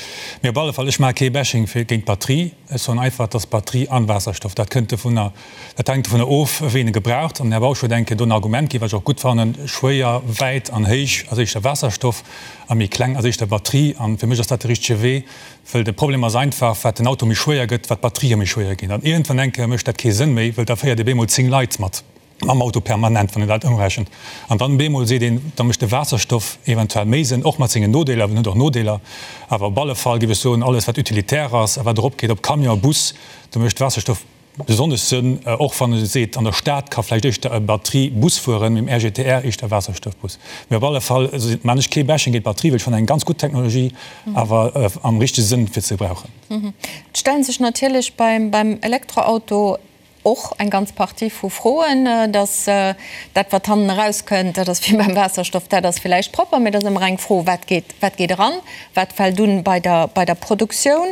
[SPEAKER 3] Mee op alle Fall, ech maache kee Bashing fir géint d'Batterie. Ech soen einfach, et ass Batterie an Waasserstoff. Dat kënnt dovunner, dat hänkt dovunner of, wéi een e gebraucht. An den Här Bausch huet eng Kéier do en Argument ginn, wat ech och gutt fannen, Schwéier, wäit an héich ass éischter Waasserstoff a méi kleng ass éischter Batterie. An fir mech ass dat de richtege Wee, wëll de Problem ass einfach, wat den Auto méi schwéier gëtt, wat d'Batterië méi schwéier ginn. An iergendwann eng Kéier mécht dat kee Sënn méi, wëll da féiert ee bemol 10 Leit mat. Mam Auto permanent, wann een dat ëmrechent. An dann bemol seet een, da mécht de Waasserstoff eventuell méi Sënn, och mat sengen Nodeeler, well en huet och Nodeeler. Awer op alle Fall géif ech soen, alles wat utilitär ass a wat eropgeet op Camion, Bus, do mécht Waasserstoff besonnesch Sënn, och wann ee seet, an der Stad ka vläicht éischter e Batterie-Bus fueren, mee im RGTR éischter Waasserstoffbus. Mee op alle Fall maan ech kee Bashing géint d'Batterie, well ech fannen eng ganz gutt Technologie, awer am richtege Sënn fir ze gebrauchen.
[SPEAKER 1] Et stellen sech natierlech beim Elektroauto Och eng ganz Partie vu Froen, dass dat, wat hannen erauskënnt, dat ass wéi beim Waasserstoff, dat ass villäicht propper, mä et ass ëmmer eng Fro, wat geet, wat geet eran, wat fält un bei der, bei der Produktioun.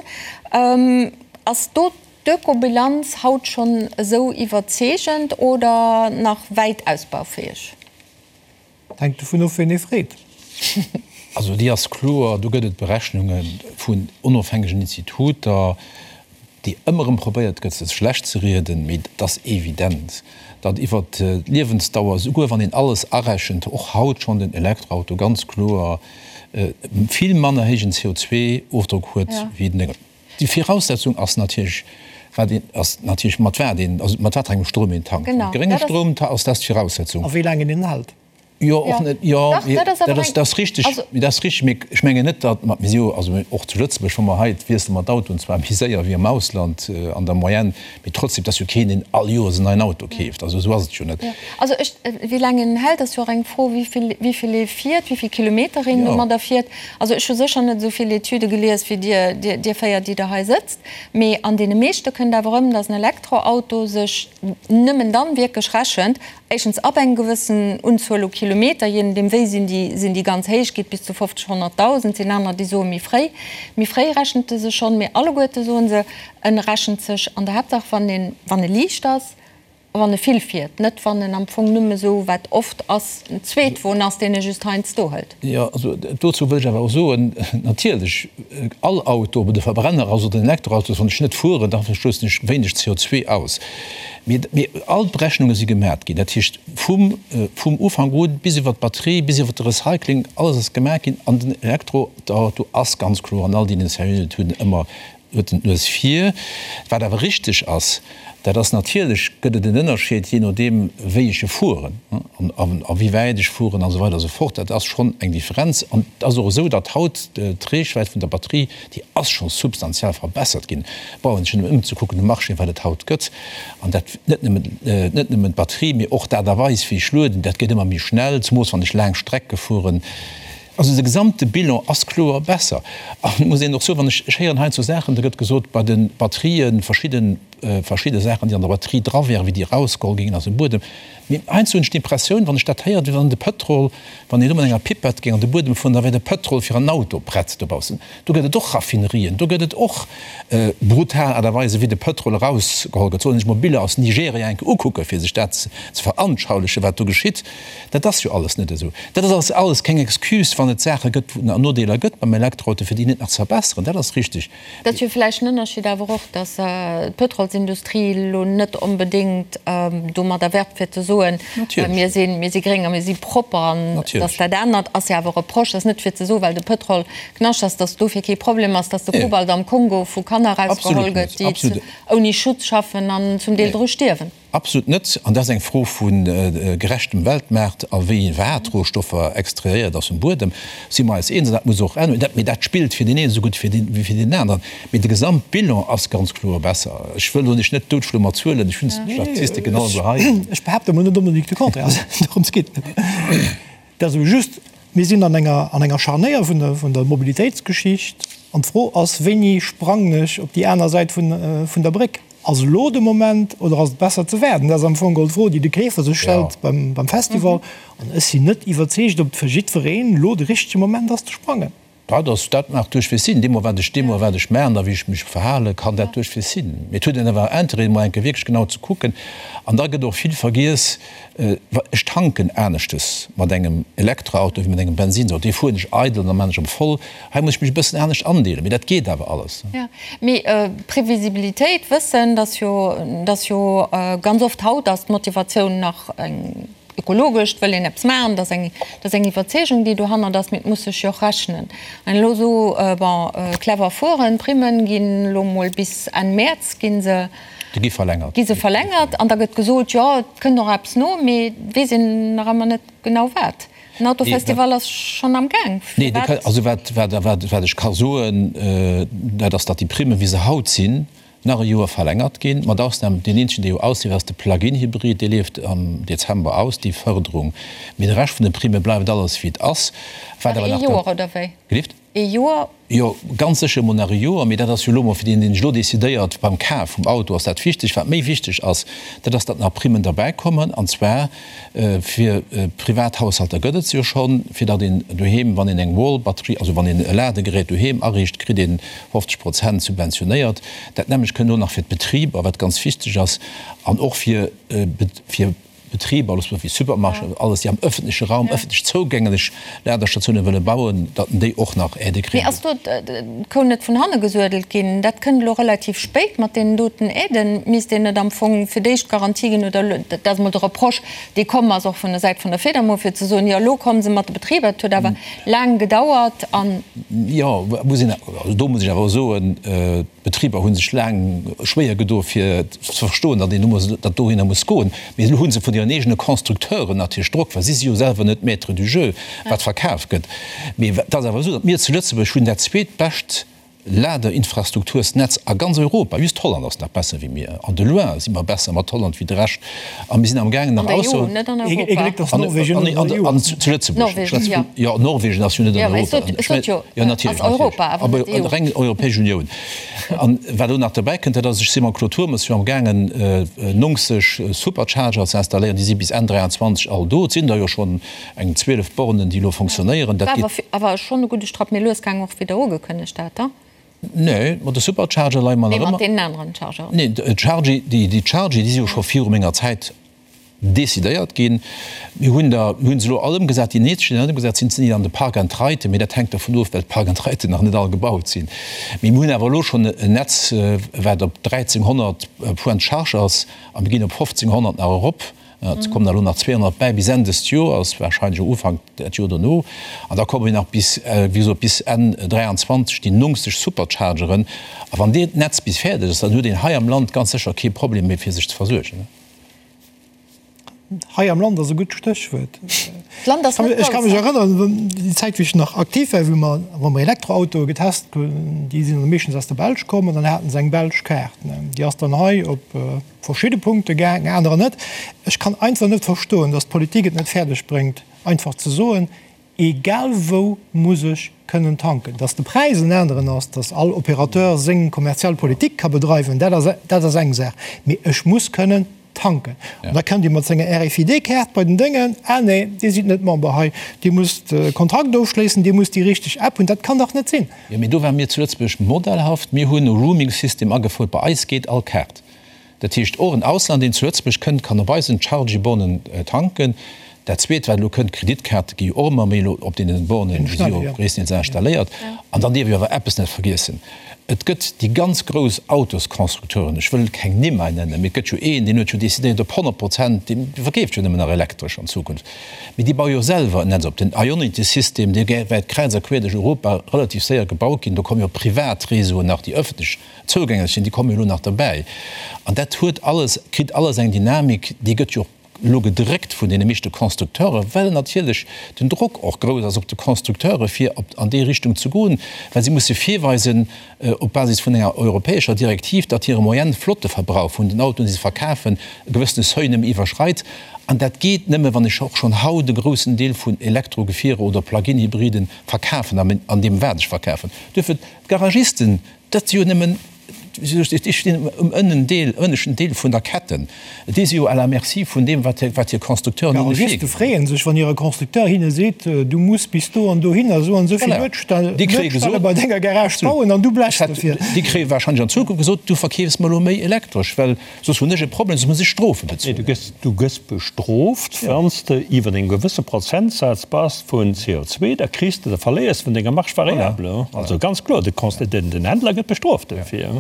[SPEAKER 1] Ass do d'Ökobilanz haut schonn esou iwwerzeegend oder nach wäit ausbaufäeg?
[SPEAKER 5] Hänkt dovun of, ween ee freet.
[SPEAKER 2] Also déi ass kloer, do gëtt et Berechnunge vun onofhängegen Instituter, déi ëmmer erëm probéiert gëtt, se schlecht ze rieden, mee et ass evident, datt iwwer d'Liewensdauer, souguer wann een alles arechent, och haut schonn den Elektroauto ganz kloer vill manner héijen CO2-Ofdrock huet wéi den. Déi Viraussetzung ass natierlech, wat een, ass natierlech mat wat een, also mat wat fir engem Stroum een tankt. Mat gréngem Stroum ass dat d'Viraussetzung.
[SPEAKER 5] A wéi laang een en hält.
[SPEAKER 2] Jo, och net, jo, dat ass richteg, dat ass richteg, mee ech mengen net, datt mer, mir si jo, also och zu Lëtzebuerg, wa mer hei, wiessele mer d'Autoen zwar méi séier wéi am Ausland an der Moyenne, mee trotzdem, et ass jo keen, deen all Joers en neien Auto keeft, also esou ass et jo net.
[SPEAKER 1] Also ech, wéi laang een hält, ass jo och eng Fro, wéi vill, wéi vill ee fiert, wéi vill Kilometer een domadder fiert. Also ech hu sécher net esou vill Etüde gelies wéi Dir, Dir, Dir 4, déi Der hei sëtzt, mee an deene meeschte kënnt awer erëm, datt en Elektroauto sech nëmmen dann wierklech rechent, Éischtens ab eng gewëssen Unzuel u Kilometer, jee nodeem wéi sinn déi, sinn déi ganz héich, geet bis zu 50, 100.000, sinn aner déi soe méi fréi. Méi fréi rechent e sech schonn, mee alleguerte soe se, en rechent sech an der Haaptsaach wann een, wann e liicht ass a wann e vill fiert, net wann en am Fong nëmme sou, wat oft ass, en Zweetwon ass, deen e just heiansdo hëlt.
[SPEAKER 2] Jo, also dozou wëll ech awer och soen, natierlech, all Auto, ob et e Verbrenner ass oder en Elektroauto ass, wann ech net fueren, da stoussen ech wéineg CO2 aus. Mee all d'Berechnunge si gemat ginn, dat heescht vum vum Ufank un bis iwwer d'Batterie, bis iwwer de Recycling, alles ass gemaach ginn. An den Elektroauto ass ganz kloer an all deenen seriösen Etüden ëmmer, huet en d'Nues vir. Wat awer richteg ass, dat ass natierlech gëtt et en Ënnerscheed jee nodeem wéi ech e fueren an a wéi wäit ech fueren an esou weider a sou fort. Dat ass schonn eng Differenz. An et ass och esou, datt haut d'Reechwäit vun der Batterie, déi ass scho substantiell verbessert ginn. Brauch een sech nëmmen ëmzekucken um Marché, wat et haut gëtt. An dat net nëmmen, net nëmmen d'Batterie, mee och d'Aart a Weis, wéi ech lueden, dat geet ëmmer méi schnell, zemoos wann ech laang Strecke fueren. Also de gesamte Bilan ass kloer besser. An et muss een och soen, wann ech, ech héieren heiansdo Saachen, da gëtt gesot, bei de Batterien, verschidden, verschidde Saachen, déi an der Batterie dra wären, wéi déi erausgeholl gingen aus dem Buedem. Mee heiansdo hunn ech d'Impressioun, wann ech dat héieren, wéi wann de Pëtrol, wann een do mat enger Pipette géing an de Buedem fueren, da wär de Pëtrol fir en Auto prett dobaussen. Do gëtt et och Raffinerien, do gëtt et och brutal Aart a Weisen, wéi de Pëtrol erausgeholl gëtt. Soll een sech mol Biller aus Nigeria eng Kéier ukucken, fir sech dat ze veranschaulichen, wat do geschitt. Dat ass jo alles net esou. Dat ass alles keng Excuse, wann et Saache gëtt, wou et Nodeeler gëtt beim Elektroauto, fir déi net nach ze verbesseren. Dat ass richtig.
[SPEAKER 1] Dat ass jo vläicht en Ënnerscheed awer och, datt d'Pëtrolsindustrie elo net onbedéngt domadder werbt, fir ze soen, mir si mir si gréng a mir si propper. An datt dat anert ass jo awer e Reproche, ass net fir ze soen, well de Pëtrol Knascht ass, datt dofir kee Problem ass, datt de Kobalt am Kongo vu Kanner erausgeholl gëtt, déi ouni Schutz schaffen an zum Deel dru stierwen.
[SPEAKER 2] Absolut net. An dat ass eng Fro vu gerechtem Weltmaart a wéi wat Rohstoffer extrairéiert ass vum Buedem, si mer eis eens. An dat muss och änneren. Mee dat spillt fir deen een esou gutt wéi fir deen aneren. Mee de Gesamtbilan ass ganz kloer besser. Ech wëll elo lech net doutschloe mat Zuelen. Ech hunn d'Statistiken alleguer hei.
[SPEAKER 5] Ech behaapte mol net onbedéngt de Contraire. Dorëms geet et net. Et ass ebe just, mir sinn an enger, an enger Scharnéier vun der, vun der Mobilitéitsgeschicht. An d'Fro ass, Wéini sprangen ech op déi aner Säit vun, vun der Bréck? Ass elo de Moment oder ass et besser ze waarden? Dat ass am Fong geholl d'Fro, déi de Keefer sech stellt beim Festival. An ech sinn net iwwerzeegt, ob et fir jiddwereen elo de richtege Moment ass ze sprangen.
[SPEAKER 2] Dat ass, dat mag duerchwegs sinn. Deemno wat ech, deemno wat ech maachen a wéi ech mech verhalen, kann dat duerchwegs sinn. Mee et huet een awer Interêt, emol eng Kéier wierklech genau ze kucken. An da gëtt och vill vergiess, Ech tanken aneschtes mat engem Elektroauto wéi mat engem Bensinsauto. Dee fueren ech eidel an da maan ech op voll. Hei muss ech mech e bëssen anescht andeelen, mee dat geet awer alles.
[SPEAKER 1] Jo, mee Previsibilitéit, wëssen, dass jo, dass jo ganz oft haut ass d'Motivatioun nach eng ökologesch, et wëll een eppes maachen, dat ass eng, dat ass eng Iwwerzeegung, déi dohannert ass, mee et muss sech jo och rechnen. An elo esou, bon, clever fueren, d'Primmen ginn elo mol bis Enn Mäerz gi se,
[SPEAKER 2] Déi gi verlängert.
[SPEAKER 1] Gi se verlängert an da gëtt gesot, jo, et kënnt och eppes no, mee et weess een nach ëmmer net genau wat. Den Autofestival ass schonn am Gaang.
[SPEAKER 2] Nee, also wat, wat, wat, wat ech ka soen, dat ass, datt déi Primmen, wéi se haut sinn, nach e Joer verlängert ginn, mat Ausnam, deen eenzegen, dee jo ausleeft, ass de Plug-in-Hybrid, dee leeft am Dezember aus, déi Fërderung. Mee de Rescht vun de Primme bleift alles, wéi et ass.
[SPEAKER 1] Wat awer nach. Nach ee Joer, oder wéi?
[SPEAKER 2] Gelift?
[SPEAKER 1] Ee Joer?
[SPEAKER 2] Jo, ganz sécher emol nach e Joer, mee dat ass jo elo emol fir deen, deen sech elo decidéiert beim Kaf vum Auto, ass dat wichteg. Wat méi wichteg ass, dat ass, datt nach Primmen derbäikommen, an zwar fir privat Haushalter gëtt et se jo schonn, fir datt een doheem, wann een eng Wall-Batterie, also wann een e Ladegerät doheem ariicht, kritt een 50 Prozent subventionéiert. Dat nämmlecht kënnt elo nach fir d'Betriber, wat ganz wichteg ass, an och fir fir. Betriber, alles wéi Supermarchéen, alles, déi am ëffentleche Raum, ëffentlech zougänglech Ladestatioune wëlle bauen, datt déi och nach Aidë
[SPEAKER 1] kréien. Mee ass do d'Kou net vun hanne gesuedelt ginn? Dat kënnt elo relativ spéit mat deenen doten Aiden. Misst een net am Fong fir d'éischt Garantie ginn, oder dat ass emol de Reproche, dee komm ass och vun der Säit vun der Fedamo, fir ze soen, jo elo komme se mat de Betriber, et huet awer laang gedauert an.
[SPEAKER 2] Jo, muss een, also do muss ech awer och soen. D'Betriber hu sech laang schwéier gedo fir ze verstoen, datt een do datt dohinner muss goen. Mee elo hu se vun hiren eegene Constructeuren natierlech Drock, well si si jo selwer net Maître du jeu, wat verkaf gëtt. Mee et ass awer esou, datt mir zu Lëtzebuerg hunn dat zweetbescht Ladeinfrastruktursnetz a ganz Europa. Just Holland ass nach besser wéi mir. An de loin si mer besser mat Holland wéi de Rescht. A mir sinn am gaangen nach
[SPEAKER 1] ausser. An der EU, net an Europa.
[SPEAKER 2] Ee Gléck, datt Norwegen net an der EU ass. Zu Lëtzebuerg. Jo, Norwegen ass jo net an Europa. Ech sot jo, jo, natierlech, ass Europa, awer net d'EU. Awer reng Europäesch Unioun. An wat elo nach derbäi kënnt, dat ass, ech si mam Claude Turmes jo am gaangen 90 Supercharger ze installéieren. Déi si bis Enn 23 all do. Et sinn der jo schonn eng 12 Bornen, déi elo fonctionnéieren.
[SPEAKER 1] Dat geet. War awer schonn e gudde Strapp méi lues gaangen, och wéi Der ugekënnegt hat, da?
[SPEAKER 2] Nee, mat de Supercharger leie mer nach
[SPEAKER 1] ëmmer. Nee, mat deenen aneren Chargeren.
[SPEAKER 2] Nee, d'Chargy, déi Chargy, déi si jo scho viru menger Zäit decidéiert ginn. Mir hunn der, mir hunn se elo all ëmgesat, déi nächst, déi ëmgesat sinn, sinn déi an de Park and Riden, mee dat hänkt dervun of, well d'Park and Riden nach net all gebaut sinn. Mee mir hunn awer elo schonn en Netz, wat op 1.300 Points de charge ass a mir ginn op 1.500 nach erop. Et kommen der elo nach 200 bäi bis Enn dëst Joers, warscheinlech och Ufank dat Joer dono. An da komme nach bis, wéi gesot, bis Enn 23 déi 90 Superchargeren. A wann deen Netz bis fäerdeg ass, dann huet een hei am Land ganz sécher kee Problem méi fir sech ze versuergen.
[SPEAKER 5] Hei am Land ass e gutt Stéchwuert. Ech ka mech erënneren, déi Zäit wéi ech nach aktiv war, wou mer, wa mer Elektroautoe getest hunn, déi sinn dann meeschtens aus der Belsch komm an dann haten se eng belsch Kaart. Déi ass dann hei op verschidde Punkte gaang, anerer net. Ech kann einfach net verstoen, datt d'Politik et net fäerdeg bréngt, einfach ze soen, Egal wou muss ech kënnen tanken. Datt de Präis en aneren ass, datt all Opérateur seng kommerziell Politik ka bedreiwen, dat ass, dat ass eng Saach. Mee ech muss kënnen tanken. An da kënnt Dir mat senger RFID-Kaart bei den Déngen, Ah nee, Dir sidd net Member hei, Dir musst e Kontrakt ofschléissen, Dir musst déi richteg App hunn. Dat kann dach net sinn!
[SPEAKER 2] Jo, mee do ware mir zu Lëtzebuerg modellhaft. Mir hunn e Roaming-System agefouert. Bei eis geet all Kaart. Dat heescht, och en Ausländer, deen zu Lëtzebuerg kënnt, kann op eisen Chargy-Bornen tanken. Dat Zweet, wat elo kënnt, D'Kreditkaarte gi jo och ëmmer méi elo op deenen Bornen, déi si jo gréisstendeels installéiert. An dann dierf ee awer eppes net vergiessen, Et gëtt déi ganz grouss Autosconstructeuren, ech wëll keng Nimm hei nennen, mee et gëtt jo een, deen huet jo decidéiert op 100 Prozent, dee verkeeft jo nëmmen nach elektresch an Zukunft, mee déi baue jo selwer en Netz op. Den Ionity-System, dee wäert kräiz a queer duerch Europa relativ séier gebaut ginn. Do komme jo privat Réseauen nach, déi ëffentlech zougänglech sinn, déi komme jo elo nach derbäi. An dat huet alles, kritt alles eng Dynamik, déi gëtt jo och elo gedréckt vun deene meeschte Constructeuren, well natierlech den Drock och grouss ass op de Constructeure fir op an déi Richtung ze goen, well si musse virweisen op Basis vun enger europäescher Direktiv, datt hire Moyenne Flotteverbrauch vun den Autoen, déi se verkafen, e gewëssene Seuil nëmme iwwerschreit. An dat geet nëmme, wann ech och schonn haut e groussen Deel vun Elektrogefierer oder Plug-in-Hybriden verkafen an deem wat ech verkafen. Duerfir, d'Garagisten, Dat si jo nëmmen, déi stinn um Ënnendeel, ënneschten Deel vun der Ketten. Déi si jo à la merci vun deem, wat hir Constructeuren hinne
[SPEAKER 5] virginn. D'Garagiste freeë sech, wann hire Constructeur hinne seet, Du muss bis do an dohinner esou an esou vill Luedstelle bei denger Garage bauen an du blechs dofir.
[SPEAKER 2] Déi kréie warscheinlech an Zukunft gesot, Du verkeefs mer elo méi elektresch, well Soss hunn ech e Problem, soss muss ech Strofe
[SPEAKER 4] bezuelen. Nee, du gëss bestrooft, wann s de iwwer engem gewësse Prozentsaz bass vun CO2, da kriss de, da verléiers de vun denger Marge variable. Also ganz kloer, de den Händler gëtt bestrooft dofir.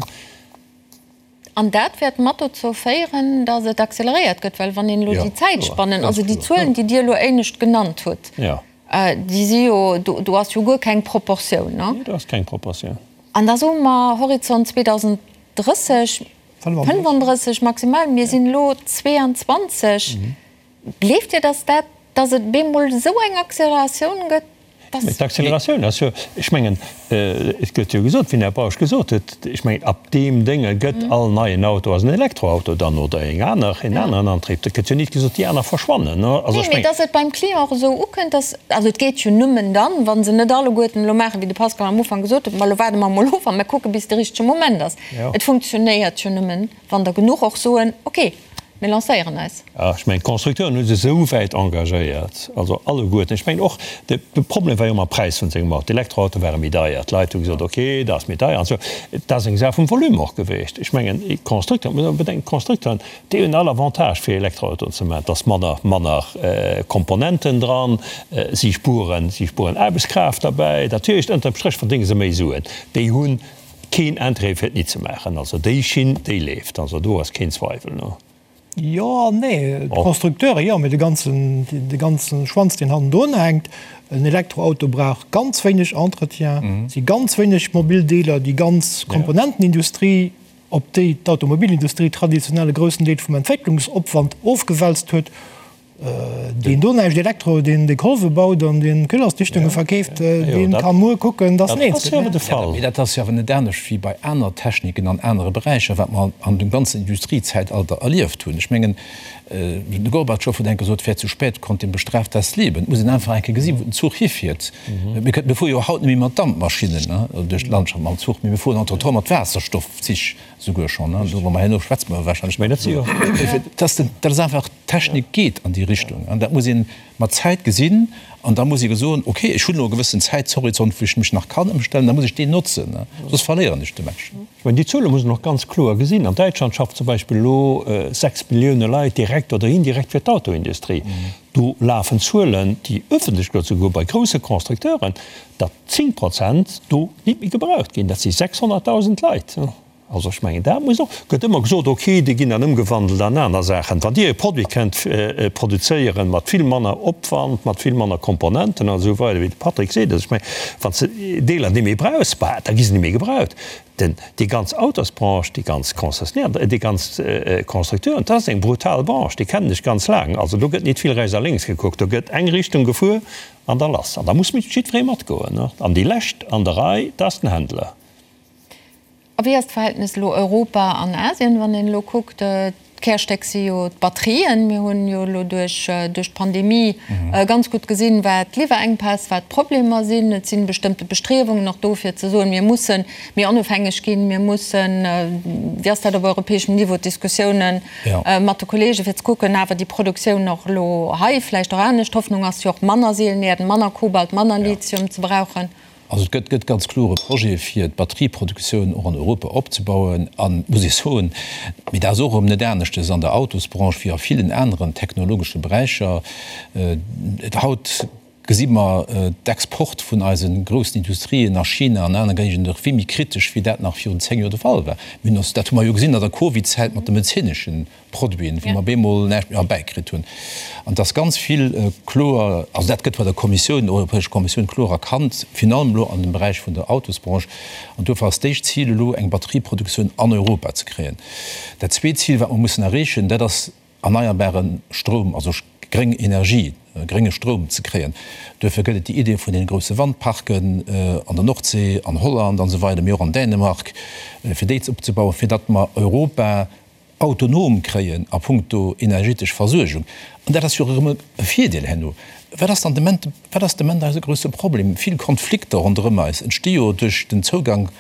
[SPEAKER 1] An dat wäert mat dozou féieren, datt et acceleréiert gëtt, well wann een elo déi Zäitspannen, also déi Zuelen, déi Dir elo éinescht genannt hutt, déi si jo, do ass jo guer keng Proportioun.
[SPEAKER 4] Nee, do ass keng Proportioun.
[SPEAKER 1] An da soe mer Horizont 2030, 35 maximal, mir sinn elo 22. Gleeft Dir, dass dat, dass et bemol esou eng Acceleratioun gëtt,
[SPEAKER 4] dass. Mä d'Acceleratioun ass jo, ech mengen, et gëtt jo gesot, wéi den Här Bausch gesot huet, ech mengen, ab deem Dénge gëtt all neien Auto ass en Elektroauto dann oder eng aner, en aneren Antrieb. Dat gëtt jo nit gesot, déi aner verschwannen.
[SPEAKER 1] Also ech mengen. Nee, mee dass et beim Client och esou ukënnt, dass, also et geet jo nëmmen dann, wa se net alleguerten elo maachen, wéi de Pascal am Ufank gesot huet, ma elo waarde mer emol of a mer kucke bis de richtege Moment ass. Et funktionéiert jo nëmmen, wann der genuch och soen, ok, mir lancéieren eis.
[SPEAKER 4] Jo, ech mengen, d'Constructeuren hu sech esou wäit engagéiert, also alleguerten. Ech mengen och, de Problem war jo ëmmer Präis vun sengem Auto. D'Elektroautoe ware méi deier. D'Leit hu gesot, ok, dat ass méi deier an esou. Dat ass eng Saach vum Volume och gewiescht. Ech mengen, d'Constructeuren, muss een bedenken, d'Constructeuren, déi hunn all Avantage fir Elektroautoen ze maachen. Et ass manner, manner Komponenten dran, si spueren, si spueren Aarbechtskraaft derbäi. Dat heescht, ënterm Stréch verdénge se méi Suen. Déi hunn Keen Intérêt fir et nit ze maachen. Also déi Schinn, déi leeft. Also do ass keen Zweiwel, no.
[SPEAKER 5] Jo an nee. D'Constructeure jo, mee de ganzen, de ganze Schwanz, deen hannendrun hänkt. En Elektroauto brauch ganz wéineg Entretien, si ganz wéineg mobil Deeler, déi ganz Komponentenindustrie, op déi d'Automobilindustrie traditionell e groussen Deel vum Entwécklungsopwand ofgewälzt huet, Deen do näischt Elektro, deen déi Kolwe baut an deen Kühlersdichtunge verkeeft, deen ka muer kucken, dass
[SPEAKER 2] en eens gëtt. Mee dat ass jo awer net anescht wéi bei aner Techniken an anere Beräicher, wat mer an dem ganzen Industriezäitalter erlieft hunn. Ech mengen, de Gorbatschow huet eng Kéier gesot, Wer zu spät kommt, dem bestraft das Leben. Et muss een einfach eng Kéier gesinn, wou den Zuch hifiert. Mir fuere jo haut net méi mat Dampmaschinnen duerch d'Landschaft mam Zuch, mee mir fueren entretemps mat Waasserstoffzich. Souguer schonn, do wa mer herno schwätze mer wahrscheinlech nach driwwer. Dass den, dat ass einfach, d'Technik geet an déi Richtung an dat muss ee mat Zäit gesinn an da muss ee soen, okay, ech hunn elo e gewëssen Zäitshorizont, wou ech mech nach kann ëmstellen, da muss ech deen notzen, soss verléieren ech de Match.
[SPEAKER 4] Ech mengen, déi Zuele muss een och ganz kloer gesinn. An Däitschland schafft zum Beispill elo 6 Millioune Leit direkt oder indirekt fir d'Autoindustrie. Do lafen Zuelen, déi ëffentlech gëtt, souguer bei grousse Constructeuren, datt 10 Prozent do nit méi gebraucht ginn. Dat si 600.000 Leit. Also ech mengen, dat muss och, gëtt ëmmer gesot, okay, déi ginn dann ëmgewandelt an aner Saachen. Wann Dir e Produit kënnt produzéieren mat vill manner Opwand, mat vill manner Komponenten an esou weider, wéi de Patrick seet, also ech mengen, wann s de Deeler net méi brauchs, bah, da gi se net méi gebraucht. Den, déi ganz Autosbranche, déi ganz Concessionnaire, déi ganz Constructeuren, dat ass eng brutal Branche, déi kennen ech ganz laang. Also do gëtt nit vill rechts a lénks gekuckt, do gëtt eng Richtung gefuer an da lass. An da muss jiddweree matgoen. An déi Lescht an der Rei, dat ass den Händler.
[SPEAKER 1] A wéi ass d'Verhältnes elo Europa an Asien, wann een elo kuckt, D'Kärstéck si jo d'Batterien. Mir hunn jo elo duerch d'Pandemie ganz gutt gesinn, wat d'Liwwerenkpäss, wat d'Problemer sinn. Et si bestëmmte Bestriewungen och do, fir ze soen, mir musse méi onofhängeg ginn, mir mussen, wéi ass dat op europäeschem Niveau, d'Diskussiounen mat de Kollegen, fir ze kucken, awer déi Produktioun och elo hei vläicht och anescht. D'Hoffnung ass jo och, manner Seelenerden, manner Kobalt, manner Lithium ze brauchen.
[SPEAKER 2] Also et gëtt gëtt ganz kloer e Projet fir d'Batterieproduktioun och an Europa opzebauen. An, muss ee soen, mee dat ass och erëm net aneschtes an der Autosbranche wéi a villen aneren technologesche Beräicher, haut gesi mer d'Export vun eise groussen Industrien a China an aner Géigenden och vill méi kritesch wéi dat nach virun 10 Joer de Fall war. Mir hunn ons, dat hu mer jo gesinn an der Covidzäit mat de medezineschen Produiten, wou mer bemol näischt méi erbäikritt hunn. An et ass ganz vill kloer, also dat gëtt bei der Kommissioun, der Europäescher Kommissioun kloer erkannt, virun allem elo an dem Beräich vun der Autosbranche. An duerfir ass d'éischt Zil elo, eng Batterieproduktioun an Europa ze kréien. Dat zweet Zil, wat mer mussen erreechen, dat ass erneierbare Stroum, also gréng Energie, grénge Stroum ze kréien. Duerfir gëtt et déi Idee vun deene grousse Wandparken an der Nordsee, an Holland an esou weider, mee och an Dänemark, fir déi opzebauen, fir datt mer Europa autonom kréien a puncto energetesch Versuergung, an dat ass jo erëm e Virdeel herno, wat ass dann de Ment, wat ass de Ment eise grousse Problem? Vill Konflikter ronderëm eis entsti jo duerch den Zougang,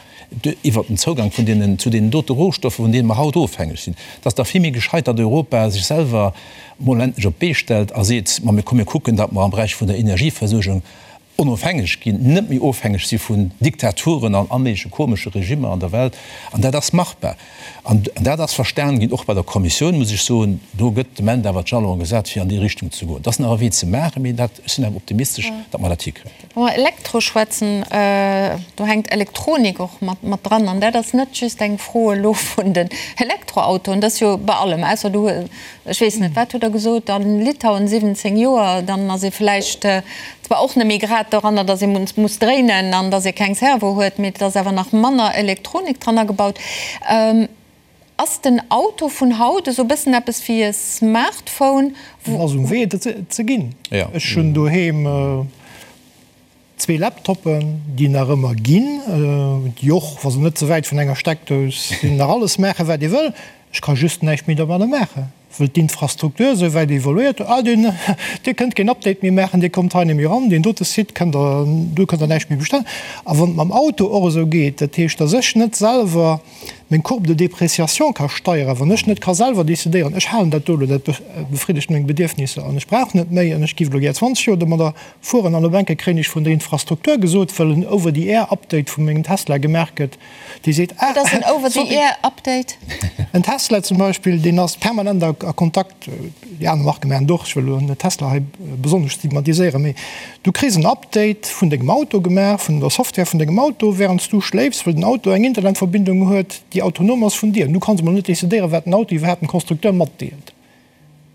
[SPEAKER 2] iwwert den Zougang vun deenen, zu deenen dote Rohstoffer, vun deene mer haut ofhängeg sinn. Et ass da vill méi gescheit, datt Europa sech selwer mol endlech op d'Bee stellt a seet, ma mir komm mir kucken, datt mer am Beräich vun der Energieversuergung onofhängeg ginn, net méi ofhängeg si vun Diktaturen an all méigleche komesche Regimmer an der Welt. An dat ass machbar. An dat ass verstan ginn, och bei der Kommissioun, muss ech soen. Do gëtt de Moment awer d'Jalone gesat, fir an déi Richtung ze goen. Et ass nach e Wee ze maachen, mee dat, ech sinn awer optimistesch, datt mer dat hikréien.
[SPEAKER 1] Wa mer Elektro schwätzen, do hänkt Elektronik och mat dran. An dat ass net just eng Fro elo vun den Elektroautoen, dat ass jo bei allem, ausser du Ech weess net, wat hutt Der gesot, a Litauen 17 Joer, dann ass ee vläicht zwar och net méi grad doranner, datt ee muss dréinen an datt ee keng Servo huet, mee et ass awer nach manner Elektronik dran agebaut. Ass den Auto vun haut esou e bëssen eppes wéi e Smartphone?
[SPEAKER 5] En ass um Wee, et ze ginn. Ech hunn doheem Zwee Laptoppen, déi nach ëmmer ginn, déi och, wa se net ze wäit vun enger Steckdous sinn, nach alles maachen, wat ee wëll. Ech ka just näischt méi domadder maachen, wëll d'Infrastruktur esou wäit evoluéiert huet, Ah, deen, Dir kënnt keen Update méi maachen, Dir kommt hei net méi eran, deen dote Site kënnt Der, do kënnt Der näischt méi bestellen. A wann et mam Auto och esou geet, dat heescht, dass ech net selwer meng Courbe de dépréciation ka steieren, wann ech net ka selwer decidéieren, ech halen dat do elo, dat befriddegt meng Bedierfnisser an ech brauch net méi an ech géif elo gär 20 Joer domadder Fueren an op enke kréien ech vun der Infrastruktur gesot, well en Over-the-Air-Update vu mengem Tesla gemaach gëtt, dee seet,
[SPEAKER 1] ah, Wat ass en Over-the-Air-Update?
[SPEAKER 5] En Tesla zum Beispill, deen ass permanent a Kontakt, déi aner Marke maachen et och, ech wëll elo net Tesla hei besonnesch stigmatiséieren, mee du kriss en Update vun dengem Auto gemaach, vun der Software vun dengem Auto, wärend s du schléifs, well den Auto eng Internetverbindung huet, déi autonom ass vun dir. Du kanns emol net decidéieren, wat den Auto iwwerhaapt dem Constructeur matdeelt.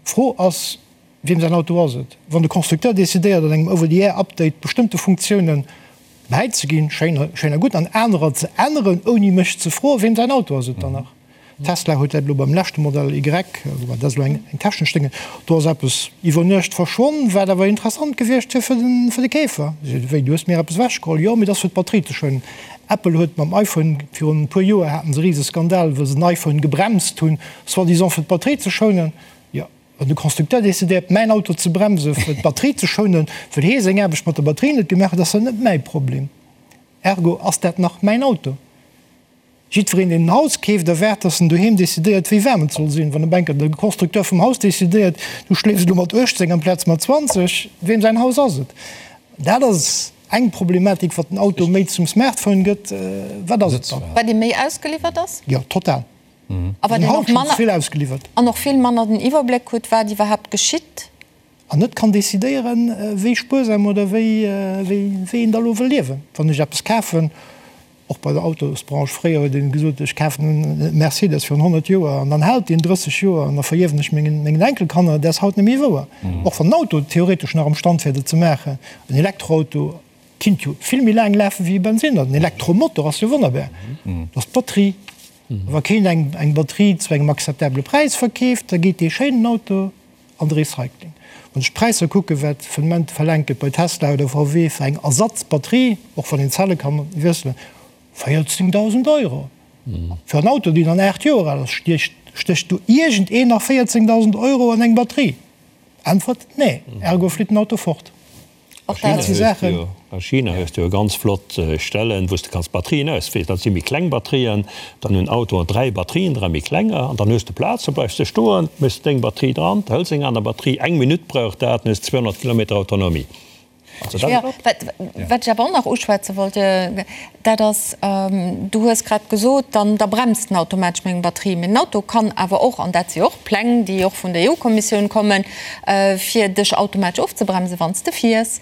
[SPEAKER 5] D'Fro ass, Wiem säin Auto ass et? Wann de Constructeur decidéiert, an engem Over-the-Air-Update bestëmmte Funktiounen bäizeginn, schéin, schéin a gutt, an anerer ze änneren, ouni mech ze froen, wiem säin Auto ass et dann nach? Tesla huet dat elo beim leschte Modell Y, woubäi dat ass elo eng technesch Dénge, do ass eppes iwwer Nuecht verschwonn, wat awer interessant gewiescht wier fir den, fir de Keefer. Wéi, du hues mir eppes ewechgeholl? Jo, mee dat ass fir d'Batterie ze schounen. Apple huet mam iPhone, virun e puer Joer haten se e rise Skandal, wou se den iPhone gebremst hunn, soi-disant fir d'Batterie ze schounen. Jo, wann de Constructeur decidéiert, mäin Auto ze bremsen, fir d'Batterie ze schounen, well hee seng Aarbecht mat der Batterie net gemaach huet, ass dat net mäi Problem. Ergo ass dat nach mäin Auto. Jiddwereen, deen en Haus keeft, erwaart, dass en doheem decidéiert, wéi waarm et soll sinn. Wann op eng Kéier de Constructeur vum Haus decidéiert, du schléifs elo mat 18 amplaz mat 20, weem säin Haus ass et? Dat ass eng Problematik, wat den Auto méi zum Smartphone gëtt. Wat ass et dann?
[SPEAKER 1] Wat ee méi ausgeliwwert ass?
[SPEAKER 5] Jo, total.
[SPEAKER 1] A wat een och manner,
[SPEAKER 5] vill ausgeliwwert.
[SPEAKER 1] An och vill manner den Iwwerbléck huet, wat iwwerhaapt geschitt.
[SPEAKER 5] An net kann decidéieren, wéi spuersam oder wéi, wéi een da lo wëll liewen. Wann ech eppes kafen, och bei der Autosbranche, fréier huet een gesot, ech kafen e Mercedes virun 100 Joer an dann hält deen 30 Joer an da verierwen ech mengen, mengen Enkelkanner. Dat ass haut net méi wouer. Och wann den Auto theoretesch nach am Stand wär, dat ze maachen, en Elektroauto kinnt jo vill méi laang lafen wéi e Bensinner. Den Elektromotor ass jo wonnerbar. Dat ass d'Batterie. Wa keen eng eng Batterie zu engem akzeptabele Präis verkeeft, da geet dee schéinen Auto an de Recycling. Wann ech d'Präisser kucken, wat vun Moment verlaangt gëtt bei Tesla oder VW fir eng Ersatzbatterie, och wann een d'Zelle ka wiesselen, 14.000 Euro fir en Auto, deen dann 8 Joer al ass, stécht do iergendeen nach 14.000 Euro an eng Batterie? Äntwert, Nee, ergo flitt den Auto fort.
[SPEAKER 4] A China hues de jo ganz flott Stellen, wou s de kanns Batterien auswiesselen. Dat si méi kleng Batterien. Dann hunn Autoen 3 Batterien dran, méi klenger. An dann hues de Plaz, da bleifs de stoen, méchs deng Batterie dran, hëls eng aner Batterie. Eng Minutt brauch dat, dann hues de 200 Kilometer Autonomie.
[SPEAKER 1] Also dat ass flott. Wat ech awer och nach uschwätze wollt, dat ass, du hues grad gesot, dann da bremst en automatesch meng Batterie. Mee den Auto kann awer och, an dat si och Pläng, déi och vun der EU-Kommissioun kommen, fir dech automatesch ofzebremsen, wann s de fiers,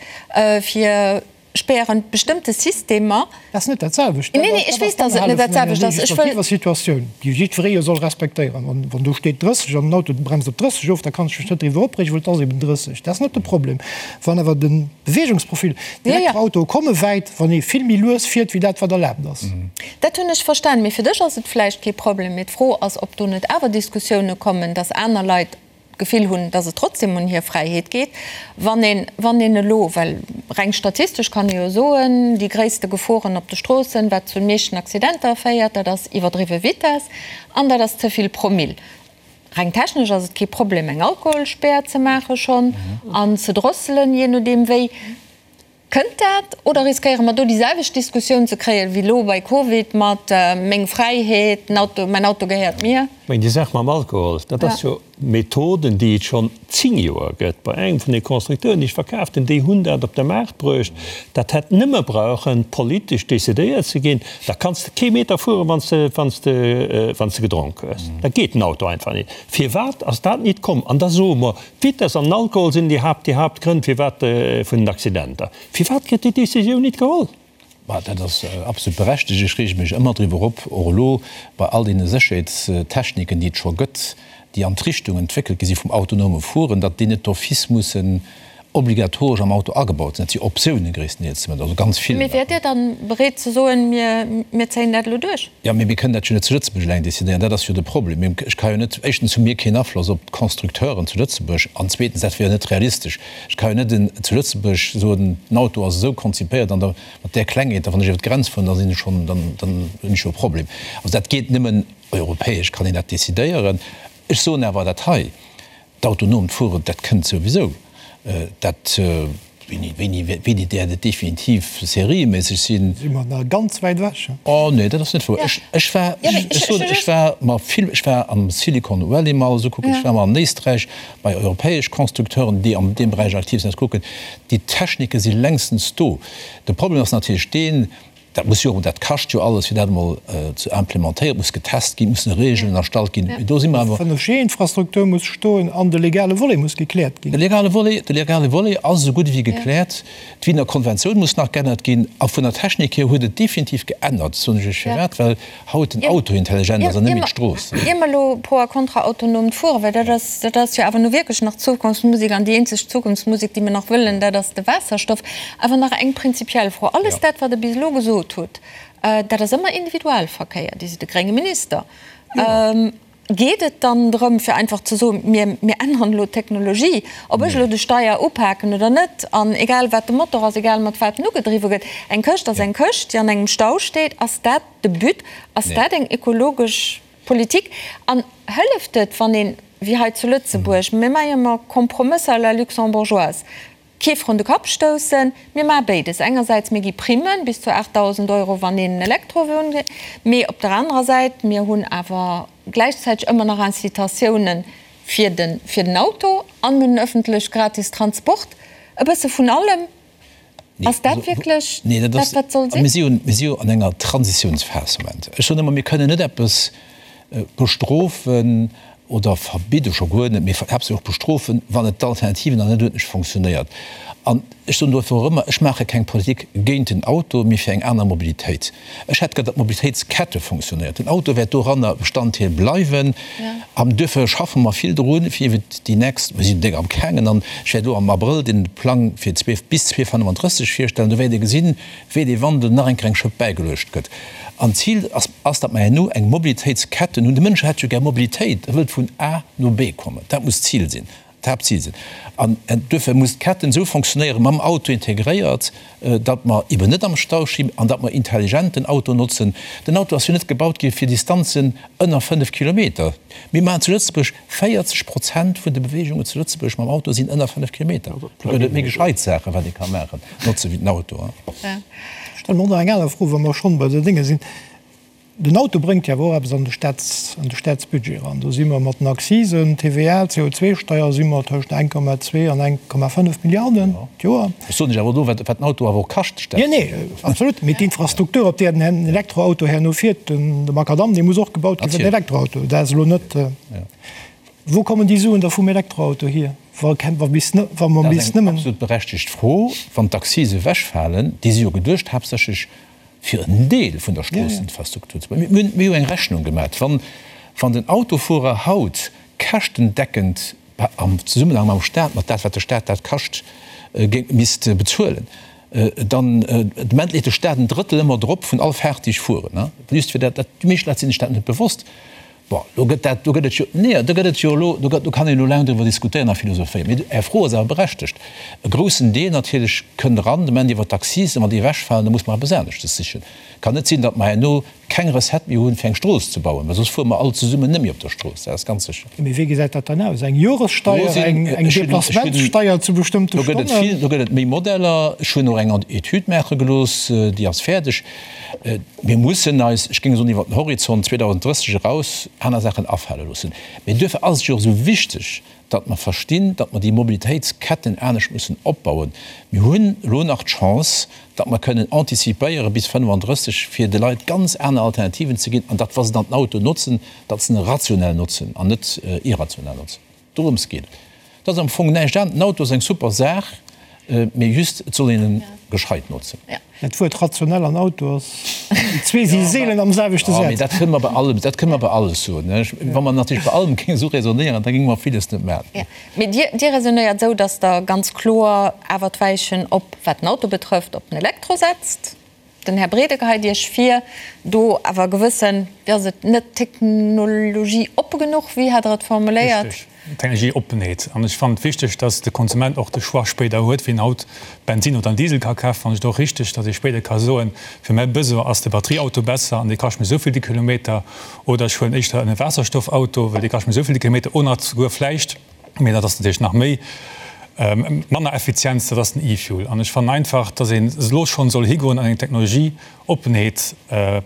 [SPEAKER 1] fir spären bestëmmte Systemer.
[SPEAKER 5] Dat ass net dat selwecht.
[SPEAKER 1] Nee, nee, ech weess, dass et net dat selwecht ass.
[SPEAKER 5] Ech wëll. Situatioun, déi jiddweree jo soll respektéieren. Wann, wann do steet 30 an den Auto bremst op 30 of, da kann ech mech net driwwer opreegen, well et ass eben 30. Dat ass net de Problem. Wann awer de Beweegungsprofil, D'Elektroautoe komme wäit, wann ee vill méi lues fiert wéi dat, wat erlaabt ass.
[SPEAKER 1] Dat hunn ech verstan. Mee fir dech ass et vläicht kee Problem. Mee d'Fro ass, ob do net awer Diskussioune kommen, datt aner Leit d'Gefill hunn, datt et trotzdem un hir Fräiheet geet, wann een, wann een elo, well reng statistesch kann ee jo soen, déi gréisste Geforen op de Stroossen, wat zu den meeschten Accidenter féiert, dat ass iwwerdriwwe Vitess an dat ass ze vill Promill. Reng technesch ass et kee Problem eng Alkoholspär ze maache schonn an ze drosselen, jee nodeem wéi. Kënnt dat oder riskéiere mer do déi selwecht Diskussioun ze kréien wéi elo bei Covid mat meng Fräiheet, den Auto, mäin Auto gehéiert mir?
[SPEAKER 4] Ech mengen déi Saach mam Alkohol, dat ass jo Methoden déi et schonn 10 Joer gëtt bei engem vun de Constructeuren déi ech verkaaft hunn, déi hunn dat op de Maart bruecht. Dat hätt nëmme brauchen politesch decidéiert ze ginn. Da kanns de kee Meter fueren, wann s de, wann s de, wann s de gedronk hues. Da geet den Auto einfach nit. Firwat ass dat nit komm? An da soe mer, d'Vitess an den Alkohol sinn déi Haapt, déi Haaptgrënn firwat, vun den Accidenter. Firwat gëtt déi Décisioun nit geholl?
[SPEAKER 2] Bah, dat ass absolut berechtegt. Ech reege mech ëmmer driwwer op, och elo bei all deene Sécherheetstechniken, déi et scho gëtt, déi an d'Richtung entwéckelt gi si vum autonome Fueren, datt déi net d'office mussen obligatoresch am Auto agebaut sinn. Dat si Optiounen gréisstendeels zumindest, also ganz vill.
[SPEAKER 1] Mee wäert Dir dann bereet ze soen, mir, mir zéien dat elo duerch?
[SPEAKER 2] Jo, mee mir kënnen dat jo net zu Lëtzebuerg eleng decidéieren. Dat ass jo de Problem. Mir, ech ka jo net, éischtens hu mir keen Afloss op d'Constructeuren zu Lëtzebuerg an zweetens, dat wier jo net realistesch. Ech ka jo net en, zu Lëtzebuerg soen, den Auto ass esou konzipéiert an da mat där Klengheet, da wann ech iwwer d'Grenz fueren, da sinn ech schonn, dann, dann hunn ech jo e Problem. Also dat geet nëmmen europäesch kann een dat decidéieren. Ech soen awer dat hei, D'autonomt Fueren, dat kënnt souwisou. Dat, wéini, wéini, wéini däert et definitiv serieméisseg sinn?
[SPEAKER 5] Si mer nach ganz wäit ewech.
[SPEAKER 2] Oh nee, dat ass net wouer. Ech, ech war, ech soen, ech war mer vill, ech war am Silicon Valley mol esou kucken, ech war mol an Éisträich bei europäesch Constructeuren, déi an deem Beräich aktiv sinn, kucken. Déi Technike si längstens do. De Problem ass natierlech deen. Dat muss jo, dat kascht jo alles, fir dat emol ze implementéieren. Et muss getest ginn, et mussen Regeln erstallt ginn. Mee do si mer awer.
[SPEAKER 5] D'Fënnefg-Infrastruktur muss stoen an de legale Volet muss gekläert ginn.
[SPEAKER 2] De legale Volet, de legale Volet ass esou gutt ewéi gekläert. D'Wiener Konventioun muss nach geännert ginn. A vun der Technik hier huet et definitiv geännert, soen ech Iech firwat, well haut den Auto intelligent ass an net méi d'Strooss.
[SPEAKER 1] Ier mer elo pro a kontra autonomt Fueren, well dat ass, dat ass jo awer nu wierklech nach Zukunftsmusek an déi eenzeg Zukunftsmusek, déi mer nach wëllen, dat ass de Waasserstoff. Awer nach eng prinzipiell Fro, Alles dat, wat Der bis elo gesot hutt, dat ass ëmmer Individualverkéier. Dir sidd e grénge Minister. Geet et dann drëm, fir einfach ze soen, mir, mir änneren elo d'Technologie, ob ech elo de Steier upaken oder net, an egal wat de Motor ass, egal mat wat en ugedriwwe gëtt, eng Këscht ass eng Këscht, déi an engem Stau steet. Ass dat de But? Ass dat eng ökologesch Politik? An hëlleft et, wann een, wéi hei zu Lëtzebuerg, mir maache jo ëmmer Kompromësser à la luxembourgeoise, Kee vrun de Kapp stoussen. Mir maache béides. Engersäits, mir gi Primmen bis zu 8.000 Euro, wann een en Elektrowon kritt. Mee op der anerer Säit, mir hunn awer gläichzäiteg ëmmer nach Incitatiounen fir de, fir den Auto an mir hunn en ëffentlech gratis Transport. E bësse vun allem. Ass dat wierklech dat, wat soll sinn?
[SPEAKER 2] Mir si jo, mir si jo an enger Transitiounsphas am Moment. Ech soen ëmmer, mir kënnen net eppes bestrofen oder verbidde scho guer net, mee haaptsächlech och bestrofen, wann et d'Alternativen nach net uerdentlech fonctionnéiert. An ech soen dofir och ëmmer, ech maache keng Politik géint den Auto, mee fir eng aner Mobilitéit. Ech hätt gär, datt d'Mobilitéitskette fonctionnéiert. Den Auto wäert doranner Bestanddeel bleiwen. An duerfir schaffe mer vill drun, fir iwwer déi nächst, mir sinn déck am gaangen, an ech wäert elo am Abrëll den Plang fir bis 2035 virstellen, do wäert Dir gesinn, wéi dee Wandel nach eng Kéier eng Schëpp bäigeluecht gëtt. An d'Zil ass, ass, datt mer herno eng Mobilitéitsketten hunn. De Mënsch hätt jo gär Mobilitéit, e wëllt vun A no B kommen. Dat muss d'Zil sinn, d'Haaptzil sinn. An duerfir muss d'Ketten esou fonctionnéieren, mam Auto integréiert, datt mer eben net am Stau stinn an datt mer intelligent den Auto notzen. Den Auto ass jo net gebaut gi fir Distanzen ënner 5 Kilometer. Mir maachen zu Lëtzebuerg 40 Prozent vun de Beweegungen zu Lëtzebuerg mam Auto sinn ënner 5 Kilometer. Do gëtt et méi gescheit Saachen, wat ee ka maachen, notze wéi den Auto.
[SPEAKER 5] Ech stelle mer och nach eng aner Fro, wa mer schonn bei de Dénge sinn. Den Auto bréngt jo awer och eppes an de Staats, an de Staatsbudget eran. Do si mer mat den Accisen, TVA, CO2-Steier si mer tëscht 1,2 an 1,5 Milliarden d'Joer.
[SPEAKER 2] Ech soen lech awer elo, wat den Auto awer och kascht,
[SPEAKER 5] de Staat. Jo, nee, absolut. Mee d'Infrastruktur, op där den Elektroauto herno fiert, de Makadamm, dee muss och gebaut gi fir den Elektroauto. Dat ass elo net. Wou kommen déi Suen da vum Elektroauto hier, wa bis wa mer
[SPEAKER 2] bis nëmmen. Dat ass eng absolut berechtegt Fro. Wann d'Accise ewechfalen, déi si jo geduecht haaptsächlech fir en Deel vun der Stroosseninfrastruktur ze bauen. Mir hunn jo eng Rechnung gemaach, wann den Autofuerer haut käschtendeckend am Zesummenhang mam Staat, mat dat wat de Staat dat kascht, géing misst bezuelen, dann de Moment leet de Staat en Drëttel ëmmer drop vun all Faart déi ech fueren. Just fir dat, déi meescht Leit sinn sech dat net bewosst. Bon, do gëtt dat, do gëtt et jo, nee, do gëtt et jo elo, do gëtt, do kann een elo laang driwwer diskutéieren a philosophéieren, mee Är Fro ass awer berechtegt. E groussen Deel natierlech kënnt eran de Moment iwwer d'Accisen, wann déi ewechfalen, da muss mer eppes aneschtes sichen. Kann net sinn, datt mer herno keng Recette méi hunn, fir eng Strooss ze bauen, well soss fuere mer all zesummen net méi op der Strooss, dat ass ganz sécher.
[SPEAKER 5] Mee wéi gesäit dat dann aus? Eng Joressteier, eng Déplacementssteier zu bestëmmte
[SPEAKER 2] Stonnen? Do gëtt et vill, do gëtt et méi Modeller. Ech hunn och eng Etüd maache gelooss, déi ass fäerdeg. Mir mussen eis, ech géing soen, iwwer den Horizont 2030 eraus aner Saachen afale loossen. Mee duerfir ass et jo och esou wichteg, datt mer verstinn, datt mer déi Mobilitéitsketten anescht mussen opbauen. Mir hunn elo nach d'Chance, datt mer kënnen anticipéiere bis 35, fir de Leit ganz aner Alternativen ze ginn an datt, wa se dann den Auto notzen, datt se en rationell notzen an net irrationell notzen. Dorëms geet et. Dat ass am Fong näischt anescht. Den Auto ass eng super Saach, mee just, et soll een en gescheit notzen.
[SPEAKER 5] Dat Wuert rationell an Auto ass, déi zwee si seelen am selwechte
[SPEAKER 2] Saz. Jo, mee dat kënne mer bei allem, dat kënne mer bei alles soen. Wa mer natierlech bei allem géinge sou raisonnéieren, da géinge mer villes net maachen.
[SPEAKER 1] Mee Dir, Dir raisonnéiert esou, datt Der ganz kloer awer d'Weichen op, wat den Auto betrëfft, op den Elektro setzt. Den Här Brede geheit Iech vir, do awer gewëssen, wéi ass et, net technologieoppe genuch, wéi hat Der et formuléiert?
[SPEAKER 3] Richtig, Technologieoppenheet. An ech fannen et wichteg, dass de Konsument och de Choix spéider huet, wien haut Bensinn oder en Diesel ka kafen. Fannen ech et och richtig, dass ee spéider ka soen, fir mäi Besoin ass de Batterieauto besser an dee kascht mech esou vill de Kilometer, oder ech huelen éischter en Waasserstoffauto, well dee kascht mech esou vill de Kilometer, oder souguer vläicht, Mee dat ass natierlech nach méi manner Effizienz, dat ass den E-Fuel. An ech fannen einfach, dass een elo schonn soll higoen an eng Technologieoppenheet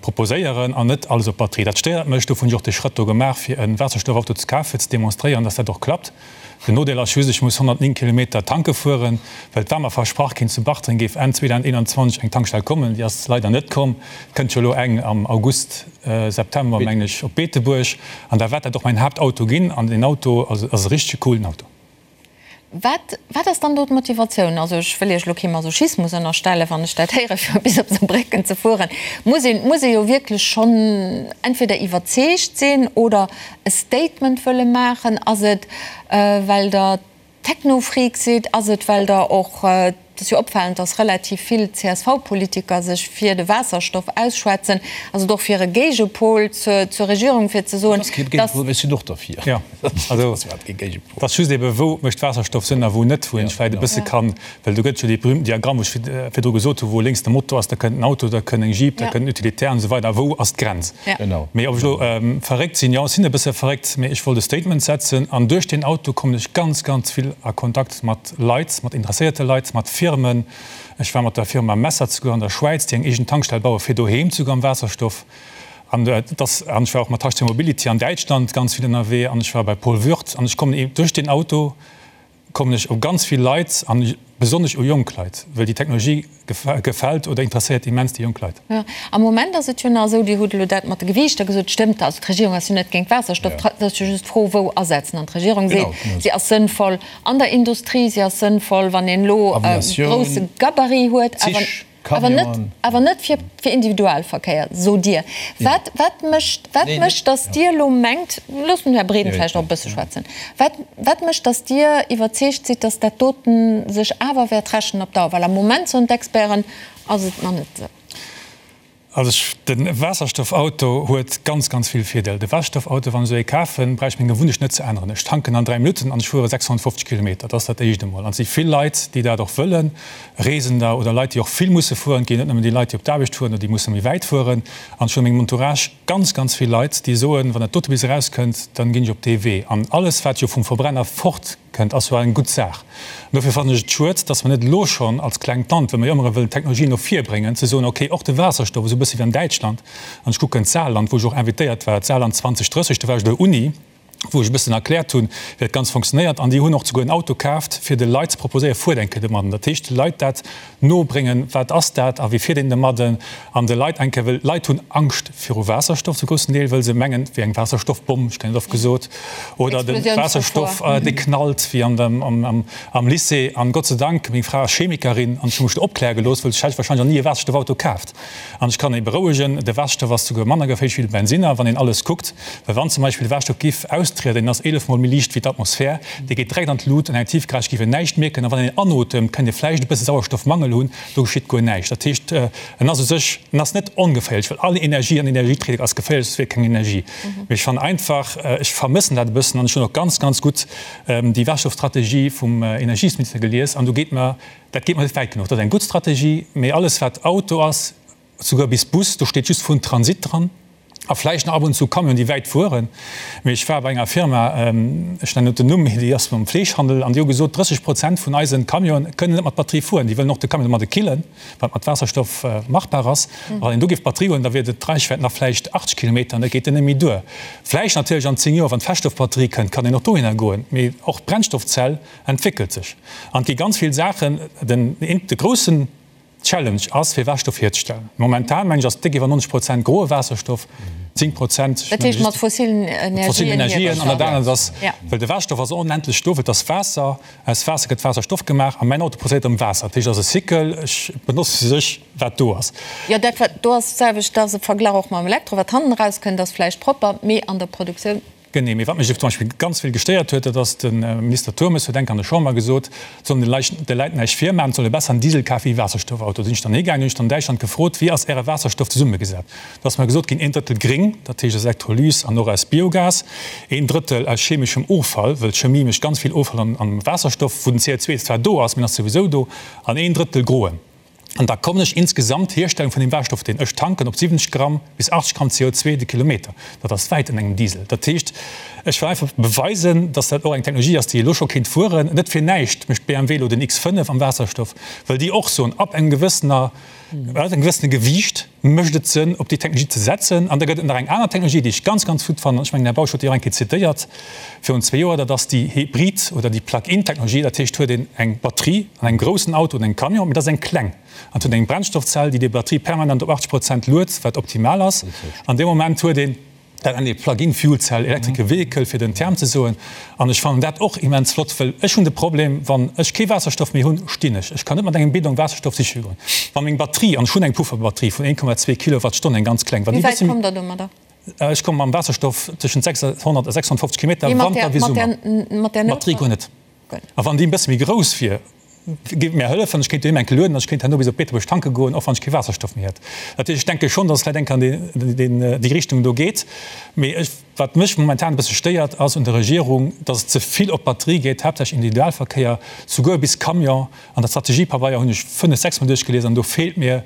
[SPEAKER 3] proposéieren an net alles op Batterie. Dat stéiert mech. Dofir hunn ech och dee Schrëtt do gemaach, fir e Waasserstoffauto ze kafen, fir ze demonstréieren, dass dat och klappt. Den Nodeel ass just, ech muss 109 Kilometer tanke fueren, well et war mer versprach ginn, zu Bartreng géif Enn 2021 eng Tankstell kommen. Déi ass leider net komm. Et kënnt jo elo eng am August, September, mengen ech, op Beetebuerg. An da wäert dat och mäin Haaptauto ginn. An deen Auto ass e richtege coolen Auto.
[SPEAKER 1] Wat, wat ass dann do d'Motivatioun? Also ech wëll Iech elo kee Masochismus ënnerstellen, wann ech dat héieren, fir bis op Saarbrécken ze fueren, muss een, muss ee jo wierklech schonn entweder iwwerzeegt sinn oder e Statement wëlle maachen. Ass et, well Der Technofreak sidd? Ass et, well Der och, et ass jo opfalend, datt relativ vill CSV-Politiker sech fir de Waasserstoff ausschwätzen, ass et och fir e Géigepol zur, zur Regierung, fir ze soen,
[SPEAKER 2] Et ass kee Géigepol, well ech sinn och derfir.
[SPEAKER 3] Jo, also et ass just ebe wou mécht Waasserstoff Sënn a wou net, wou een vläicht e bësse kann, well do gëtt jo dee berühmten Diagramm, wou ech virdru gesot hu wou lénks de Motor ass, da kënnt en Auto, da kënn eng Jeep, da kënnt en Utilitaire an esou weider, a wou ass d'Grenz? Mee ob ech elo verréckt sinn, jo ech sinn e bësse verréckt, mee ech wollt e Statement setzen an duerch deen Auto kommen ech ganz, ganz vill a Kontakt mat Leit, mat interesséierte Leit, mat Firmen. Ech war mat der Firma Messer zeguer an der Schwäiz, déi eng eegen Tankstell baue fir doheem zeguer am Waasserstoff. An et ass, an ech war och mat HC Mobility an Däitschland ganz vill ënnerwee an ech war bei Paul Würth an ech kommen ee duerch deen Auto kommen ech u ganz vill Leit an besonnesch u jonk Leit, well déi Technologie gefält oder interesséiert immens déi jonk Leit.
[SPEAKER 1] Jo, am Moment ass et jo nach esou, Dir hutt elo dat mat de Gewiichter gesot, stëmmt, also d'Regierung ass jo net géint Waasserstoff, et ass jo just d'Fro wou asetzen. An d'Regierung seet, si ass sënnvoll an der Industrie, si ass sënnvoll wann een elo e grousse Gabarit huet, awer. Awer net, awer net fir, fir Individualverkéier, sot Dir. Wat, wat mécht, wat mécht, datt Dir elo mengt, loosst den Här Breden vläicht och e bësse schwätzen, wat, wat mécht, datt Dir iwwerzeegt sidd, datt dat doten sech awer wäert rächen op Dauer? Well am Moment, soen d'Experten, ass et nach net esou.
[SPEAKER 3] Also ech, de Waasserstoffauto huet ganz, ganz vill Virdeeler. De Waasserstoffauto, wann ech esou ee kafen, brauch ech meng Gewunnecht net ze änneren. Ech tanken an 3 Minutten an ech fuere 650 Kilometer. Dat ass dat éischt emol. An et si vill Leit, déi dat och wëllen, Reesender oder Leit, déi och vill musse fueren. Et ginn net nëmmen déi Leit, déi op d'Aarbecht fueren oder déi musse méi wäit fueren. An ech hunn a mengem Entourage ganz, ganz vill Leit, déi soen, wann dat dote bis erauskënnt, dann ginn ech op dee Wee. An alles, wat jo vum Verbrenner fort Kënnt, ass jo eng gutt Saach. An dofir fannen ech et schued, dass mer net elo schonn als klengt Land, well mer jo ëmmer erëm wëllen Technologien no vir bréngen, ze soen, okay, och de Waasserstoff, esou e bësse wéi an Däitschland, an ech kucken d'Saarland, wou ech och invitéiert war, d'Saarland 2030, do war ech op der Uni, wou ech e bëssen erkläert hunn, wéi dat Ganzt funktionéiert, an déi hunn och souguer en Auto kaaft, fir de Leit ze proposéieren, fuert eng Kéier domadden. Dat heescht, de Leit dat nobréngen, wat ass dat a wéi fiert een domadden, an de Leit eng Kéier, well d'Leit hunn Angscht viru Waasserstoff zu groussen Deel, wëll se mengen, et wier eng Waasserstoffbomm, ech kréien et oft gesot, oder de Waasserstoff, dee knallt wéi an dem, am Lycée. An Gott sei Dank, meng Fra ass Chemikerin an ech hu mech do opkläre gelooss, wëll ech hätt wahrscheinlech nach ni e Waasserstoffauto kaaft. An ech kann ee berouegen, de Waasserstoff ass souguer manner geféierlech wéi de Bensinner, wann een alles kuckt. Well wann zum Beispill de Waasserstoff giff austrieden, deen ass 11 mol méi liicht wéi d'Atmosphär, dee geet direkt an d'Lut, an eng Tiefgarage giff een näischt mierken. A wann een anotemt, kënnt ee vläicht e bësse Sauerstoffmangel hunn, do geschitt guer näischt. Dat heescht, en ass u sech, en ass net ongeféierlech, well all Energie an Energieträger ass geféierlech, soss wier keng Energie. Mee ech fannen einfach, ech vermëssen dat e bëssen an ech hunn och ganz, ganz gutt déi Waasserstoffstrategie vum Energiesminister gelies an do geet mer, dat geet mer net wäit genuch. Dat ass eng gutt Strategie, mee alles wat Auto ass, souguer bis Bus, do steet just vun Transit dran a vläicht nach ab und zu Camionen, déi wäit fueren. Mee ech war bei enger Firma, ech nennen net den Numm, mee déi ass mam Fleeschhandel, an déi hu gesot, 30 Prozent vun eisen Camionen kënnen net mat Batterie fueren. Déi wëllen och de Camion domadde killen, wat mat Waasserstoff machbar ass. A wann een do géif Batterie huelen, da wier d'Reichwäit nach vläicht 80 Kilometer an dat geet dann net méi duer. Vläicht natierlech an 10 Joer, wann d'Feststoffbatterie kënnt, kann een och dohinner goen. Mee och d'Brennstoffzell entwéckelt sech an et gi ganz vill Saachen. Den, de groussen Challenge ass fir Waasserstoff hierzestellen. Momentan mengen ech ass déck iwwer 90 Prozent groe Waasserstoff, 10 Prozent
[SPEAKER 1] Dat heescht mat fossilen Energien.
[SPEAKER 3] An dat anert ass, well de Waasserstoff ass onendlech do, well et ass Waasser, aus Waasser gëtt Waasserstoff gemaach a mäin Auto produzéiert erëm Waasser. Dat heescht et ass e Cycle, ech benotze u sech wat do ass.
[SPEAKER 1] Jo, dat wat do ass d'selwecht, dat ass e Verglach och mam Elektro, wat hannen erauskënnt ass vläicht propper, mee an der Produktioun.
[SPEAKER 3] Genee, mee wat mech zum Beispill ganz vill gestéiert huet, dat ass, de Minister Turmes huet enk an der Chamber gesot, et soll een de Leit näischt virmaachen, et soll ee besser en Diesel kafen wéi e Waasserstoffauto. Da sinn ech dann higaangen, hunn ech dann an Däitschland gefrot, wéi ass Äre Waasserstoff zesummegesat? Do ass mer gesot ginn, een Drëttel gréng, dat heescht aus Elektrolys an och aus Biogas, een Drëttel aus chemeschem Offall, wëll d'Chemie mécht ganz vill Offall am Waasserstoff, wou den CO2 zwar do ass, mee en ass souwisou do, an een Drëttel groen. An da kommen ech insgesamt, Hierstellung vun deem Waasserstoff, deen ech tanken, op 70 Gramm bis 80 Gramm CO2 de Kilometer. Dat ass wäit ënner engem Diesel. Dat heescht, Ech wëll einfach beweisen, dass dat och eng Technologie ass, déi elo scho kéint fueren. Net fir näischt mécht BMW elo den X5 am Waasserstoff, well déi och soen, ab engem gewëssener, ab engem gewëssene Gewiicht mécht et Sënn, op déi Technologie ze setzen. An da gëtt et nach eng aner Technologie, déi ech ganz, ganz gutt fannen, ech mengen, den Här Bausch huet déi och eng Kéier zitéiert virun zwee Joer, dat ass déi Hybrid oder déi Plug-in-Technologie. Dat heescht, huet een eng Batterie an engem groussen Auto oder engem Camion, mee dat ass eng kleng an huet eng Brennstoffzell, déi déi Batterie permanent op 80 Prozent luet, wat optimal ass. An deem Moment huet een Dat nennt ee Plug-in Fuel Cell Electrical Vehicle, fir den Term ze soen. An ech fannen dat och immens flott, well ech hunn de Problem, wann ech kee Waasserstoff méi hunn, stinn ech. Ech kann net mat engem Bidon Waasserstoff siche goen. Wa meng Batterie, an ech hunn eng Pufferbatterie vun 1,2 Kilowattstonn, eng ganz kleng, wann
[SPEAKER 1] déi
[SPEAKER 3] e
[SPEAKER 1] Wéi wäit
[SPEAKER 3] bësse
[SPEAKER 1] kommt Der domadder?
[SPEAKER 3] Ech komme mam Waasserstoff tëschent 600 a 650 Kilometer,
[SPEAKER 1] Mee mat
[SPEAKER 3] Wanter
[SPEAKER 1] där,
[SPEAKER 3] wéi
[SPEAKER 1] mat
[SPEAKER 3] Summer.
[SPEAKER 1] där, mat där
[SPEAKER 3] D'Batterie guer net. A wann déi e bësse méi grouss wier, géif et mär hëllefen, ech kéint doheem eng Kéier lueden an ech kéint herno bis op Beetebuerg tanke goen, och wann ech kee Waasserstoff méi hätt. Dat heescht, ech denke schonn, datt et vläicht eng Kéier an déi Richtung do geet. Mee ech, wat mech momentan e bësse stéiert, ass un der Regierung, datt et ze vill op d'Batterie geet, haaptsächlech Individualverkéier, souguer bis Camion. An der Strategiepabeier hunn ech fënnef, sechs Mol duerchgelies an do feelt mir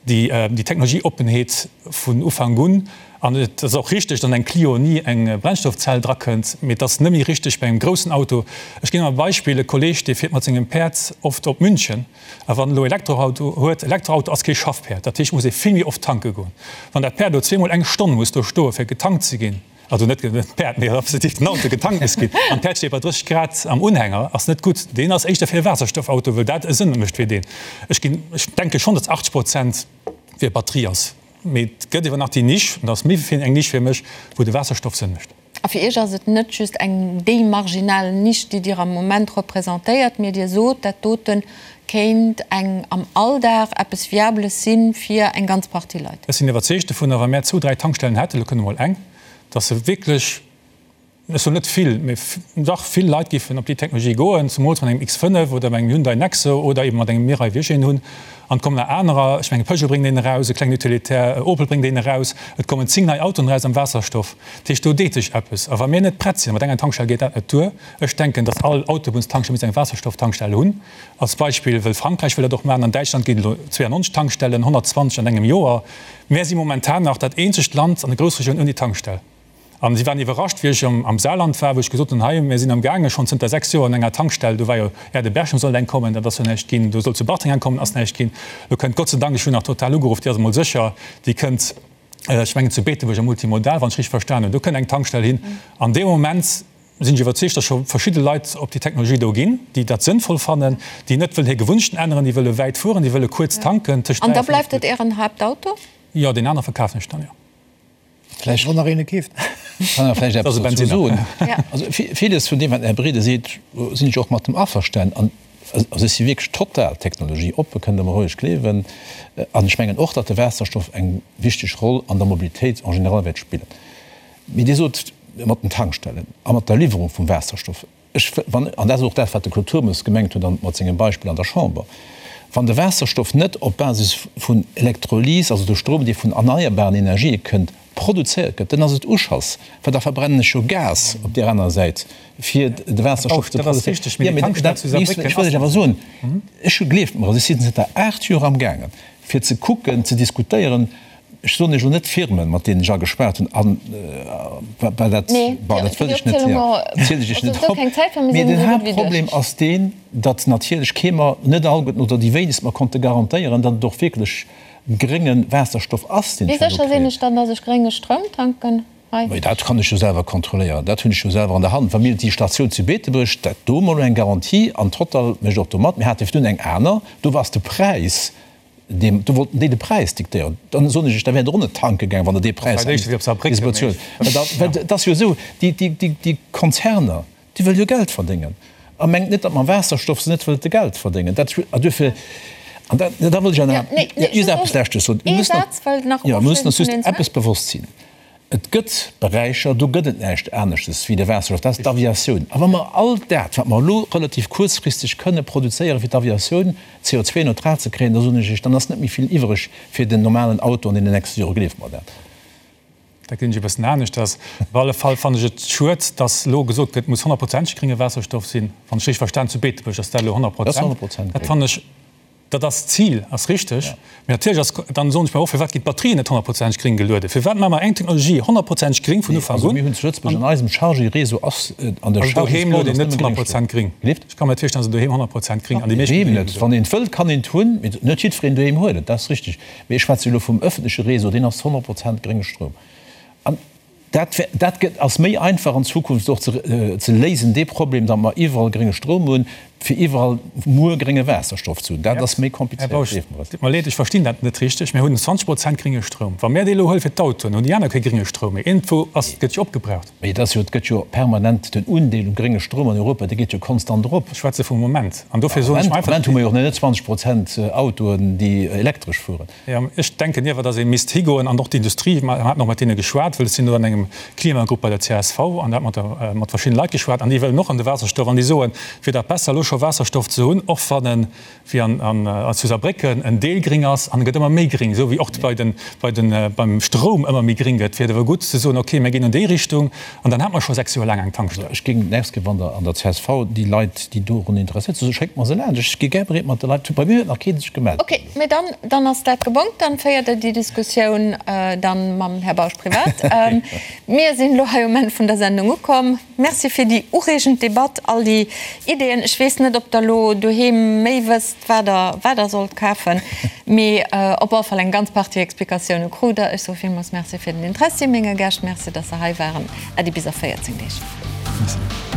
[SPEAKER 3] déi Technologieoppenheet vun Ufank un. An et ass och richteg, datt an eng Clio ni eng Brennstoffzell drakënnt, mee et ass net méi richteg bei engem groussen Auto. Ech ginn ëmmer e Beispill, E Kolleeg, dee fiert mat sengem Päerd oft op München. A wann en elo Elektroauto huet, Elektroauto ass kee Schaffpäerd, dat heescht, et muss ee vill méi oft tanke goen. Wann dat Päerd elo zweemol eng Stonn muss do stoe fir getankt ze ginn, Also net d'Päerd, mee respektiv den Auto getankt muss ginn. An d'Päerd steet bei 30 Grad am Unhänger, ass net gutt. Deen ass éischter fir e Waasserstoffauto, wëll dat e Sënn mécht fir deen. Ech ginn, ech denke schonn, datt 80 Prozent fir Batterie ass. Mee et gëtt ewer nach déi Nisch, an dat ass méi wéi eng Nisch fir mech, wou de Waasserstoff Sënn mécht.
[SPEAKER 1] A fir Iech ass et net just eng déi marginal Nisch, déi Dir am Moment representéiert, mee Dir sot, dat dote kéint eng am Alldag eppes Viables si fir eng ganz Partie Leit.
[SPEAKER 3] Ech sinn iwwerzeegt dovunner, wa mär zwou, dräi Tankstellen hätten, elo kënnt emol eng, dass se wierklech, ech soen net vill, mee dach vill Leit géifen op déi Technologie goen, zumools mat engem X5 oder mat engem Hyundai Nexo oder eben mat engem Mirai, wéi ech een hunn. An et kommen nach anerer, ech mengen Peugeot bréngt een eraus, e klengen Utilitaire, Opel bréngt een eraus, et kommen 10 nei Autoen eraus am Waasserstoff. Dat heescht, do deet sech eppes. A wa mir net prett sinn, mat enger Tankstell geet dat net duer, ech denken, dass all Autobunnstankstell misst eng Waasserstofftankstell hunn, Als Beispill, wëll Frankräich wëll dat och maachen, an Däitschland ginn et elo 92 Tankstellen, 120 an engem Joer. Mär si momentan nach dat eenzegt Land an der Groussregioun ouni Tankstell. An si waren iwwerrascht, wéi ech am Saarland war, wou ech gesot hunn, hei, mir sinn amgaange schonn zënter 6 Joer an enger Tankstell, do war jo Erde-Berchem sollt eng kommen, dat ass jo näischt ginn, do sollt zu Bartreng eng kommen, ass näischt ginn. Elo kënnt Gott sei Dank, ech hunn nach Total ugeruff, déi ass emol sécher, déi kënnt, ech mengen zu Beetebuerg am Multimodal, wann ech richteg verstan hunn, do kënnt eng Tankstell hin. An deem Moment sinn ech iwwerzeegt, datt scho verschidde Leit op déi Technologie do ginn, déi dat sënnvoll fannen, déi net wëllen hir Gewunnechten änneren, déi wëlle wäit fueren, déi wëlle kuerz tanken,
[SPEAKER 1] tëscht An 3 da a 5 bleift et Ären Haaptauto?
[SPEAKER 3] Jo, deen anere verkafen ech dann, jo.
[SPEAKER 2] Vläicht. Wann nach een e keeft. Kann awer vläicht eppes dozou soen. Also villes vun deem, wat den Här Brede seet, sinn ech och mat em averstanen. An also ech si wierklech total technologieoppe, kënnt Der mer roueg gleewen. An ech mengen och, datt de Waasserstoff eng wichteg Roll an der Mobilitéit en général wäert spillen. Mee Dir sot, mat den Tankstellen a mat der Liwwerung vum Waasserstoff, ech, wann, an dat ass och dat, wat de Claude Turmes gemengt huet an mat sengem Beispill an der Chamber, wann de Waasserstoff net op Basis vun Elektrolys, also de Strom, dee vun erneierbaren Energië kënnt, produzéiert gëtt, dann ass et Uschass, well da verbrennen ech jo Gas op där anerer Säit, fir de Waasserstoff ze produzéieren. Jo, mee dat, ech wëll lech awer soen, ech hu, gleeft mer, also ech sinn zënter 8 Joer amgaangen, fir ze kucken, ze diskutéieren, Ech soen Iech elo net d'Firmen, mat deenen ech agespaart hunn, an well dat, bon, dat wëll ech net, jo, zielen ech Iech net op. Mee den Haaptproblem ass deen, datt natierlech kee mer, net alleguerten oder déi wéinegst mer konnte garantéieren, datt et och wierklech grénge Waasserstoff ass, deen
[SPEAKER 1] ech herno kréien. Wéi sécher sinn ech dann, datt ech grénge Stroum tanken
[SPEAKER 2] hei? Mee dat kann ech jo selwer kontrolléieren, dat hunn ech jo selwer an der Hand. Wa mir déi Statioun zu Beetebuerg, dat do hu mer elo eng Garantie an Total mécht och do mat. Mir hate virdrun eng aner, do ass de Präis Deem, do wollten déi de Präis diktéieren. Dann soen ech iech, da wäert Der och net tanke gaang, wann Der dee Präis bezuelt. Well et ass jo esou, déi, déi, déi, déi Konzerner, déi wëlle jo Geld verdéngen. A mengt net, datt mam Waasserstoff se net wëllte Geld verdéngen. Dat, a duerfir, an da, da wëll ech awer nach just eppes Leschtes soen. Mir müssen, jo, mir müssen ons just eppes bewosst sinn. Et gëtt Beräicher, do gëtt et näischt aneschtes wéi de Waasserstoff, dat ass d'Aviatioun. A wa mer all dat, wat mer elo relativ kuerzfristeg kënne produzéieren, fir d'Aviatioun CO2-neutral ze kréien, da soen ech Iech, dann ass net méi vill iwwereg fir den normalen Auto an deenen nächste Jore. Gleeft mer dat.
[SPEAKER 3] Dat gesinn ech e bëssen aneschters. Op alle Fall fannen ech et schued, dass elo gesot gëtt, et muss honnertprozenteg grénge Waasserstoff sinn. Wann ech richteg verstan, zu Beetebuerg ass dat elo 100 Prozent. Dat fannen ech. Dat ass d'Zil, ass richteg. Mee natierlech ass, dann soen ech mer och, firwat ginn d'Batterien net honnertprozenteg gréng gelueden? Firwat maache mer eng Technologie honnertprozenteg gréng vun Ufank
[SPEAKER 2] un? Mir hunn zu Lëtzebuerg an eisem Chargy-Réseau ass an der
[SPEAKER 3] Also doheem luet een net 100 Prozent gréng. Ech ka mer net virstellen, datt een doheem 100 Prozent gréng an déi meescht
[SPEAKER 2] Doheem net. Wann een et wëllt, kann een et hunn, mee net jiddwereen doheem huet et, dat ass richteg. Mee ech schwätze jo elo vum ëffentleche Réseau, deen ass 100 Prozent grénge Stroum. An Dat dat gëtt, ass méi einfach an Zukunft och ze ze léisen, dee Problem, datt mer iwwerall grénge Stroum hunn, fir iwwerall muer grénge Waasserstoff ze hunn. Dat ass méi
[SPEAKER 3] Här
[SPEAKER 2] komplizéiert,
[SPEAKER 3] Bausch,
[SPEAKER 2] gleeft mer et.
[SPEAKER 3] Deet mer leed, ech verstinn dat net richteg. Mir hunn 20 Prozent grénge Stroum. Wa mär dee elo huele fir d'Autoen, hunn déi aner kee grénge Stroum méi. Iergendwou ass, gëtt jo opgebraucht.
[SPEAKER 2] Mee et ass jo, et gëtt jo permanent, den Undeel um grénge Stroum an Europa, dee geet jo konstant erop.
[SPEAKER 3] Ech schwätze vum Moment. An dofir soen ech mer
[SPEAKER 2] einfach. Am Moment hu mer jo och nach net 20 Prozent Autoen, déi elektresch fueren.
[SPEAKER 3] Jo, ech denken iewer, datt ee misst higoen an och d'Industrie, mer haten och mat deene geschwat, well ech sinn do an engem Klimagrupp bei der csv an da hat mat der, mat verschiddene Leit geschwat an déi wëllen och an de Waasserstoff an déi soen, et wier dach besser elo scho Waasserstoff ze hunn, och wann en, wéi an, an zu Saarbrécken, en Deel gring ass an e gëtt ëmmer méi gring, esou wéi och bei den, bei den, beim Stroum ëmmer méi gring gëtt, wier et awer gutt ze soen, okay, mir ginn an déi Richtung An dann hat mer scho 6 Joer laang eng Tankstell.
[SPEAKER 2] Ech géing d'nächst Kéier, wann Der an der csv déi Leit, déi dorun interesséiert sinn, schéckt mer se laanscht. Ech gi gär bereet mat de Leit. Bei mir huet nach kee sech gemellt.
[SPEAKER 1] Ok, mee dann, dann ass dat gebongt. Dann féiert Der déi Diskussioun dann mam Här Bausch privat. Mir sinn elo hei um Enn vun der Sendung ukomm. Merci fir déi ureegend Debatt, all déi Ideeën. Ech weess net, ob Der elo doheem méi wësst, wat Der, wat Der sollt kafen, mee op alle Fall eng ganz Partie Explikatioune krut Der. Ech soe villmools Merci fir den Interessi menge Gäscht. Merci, dass Se hei waren. Äddi bis a 14 Deeg.
[SPEAKER 3] Merci.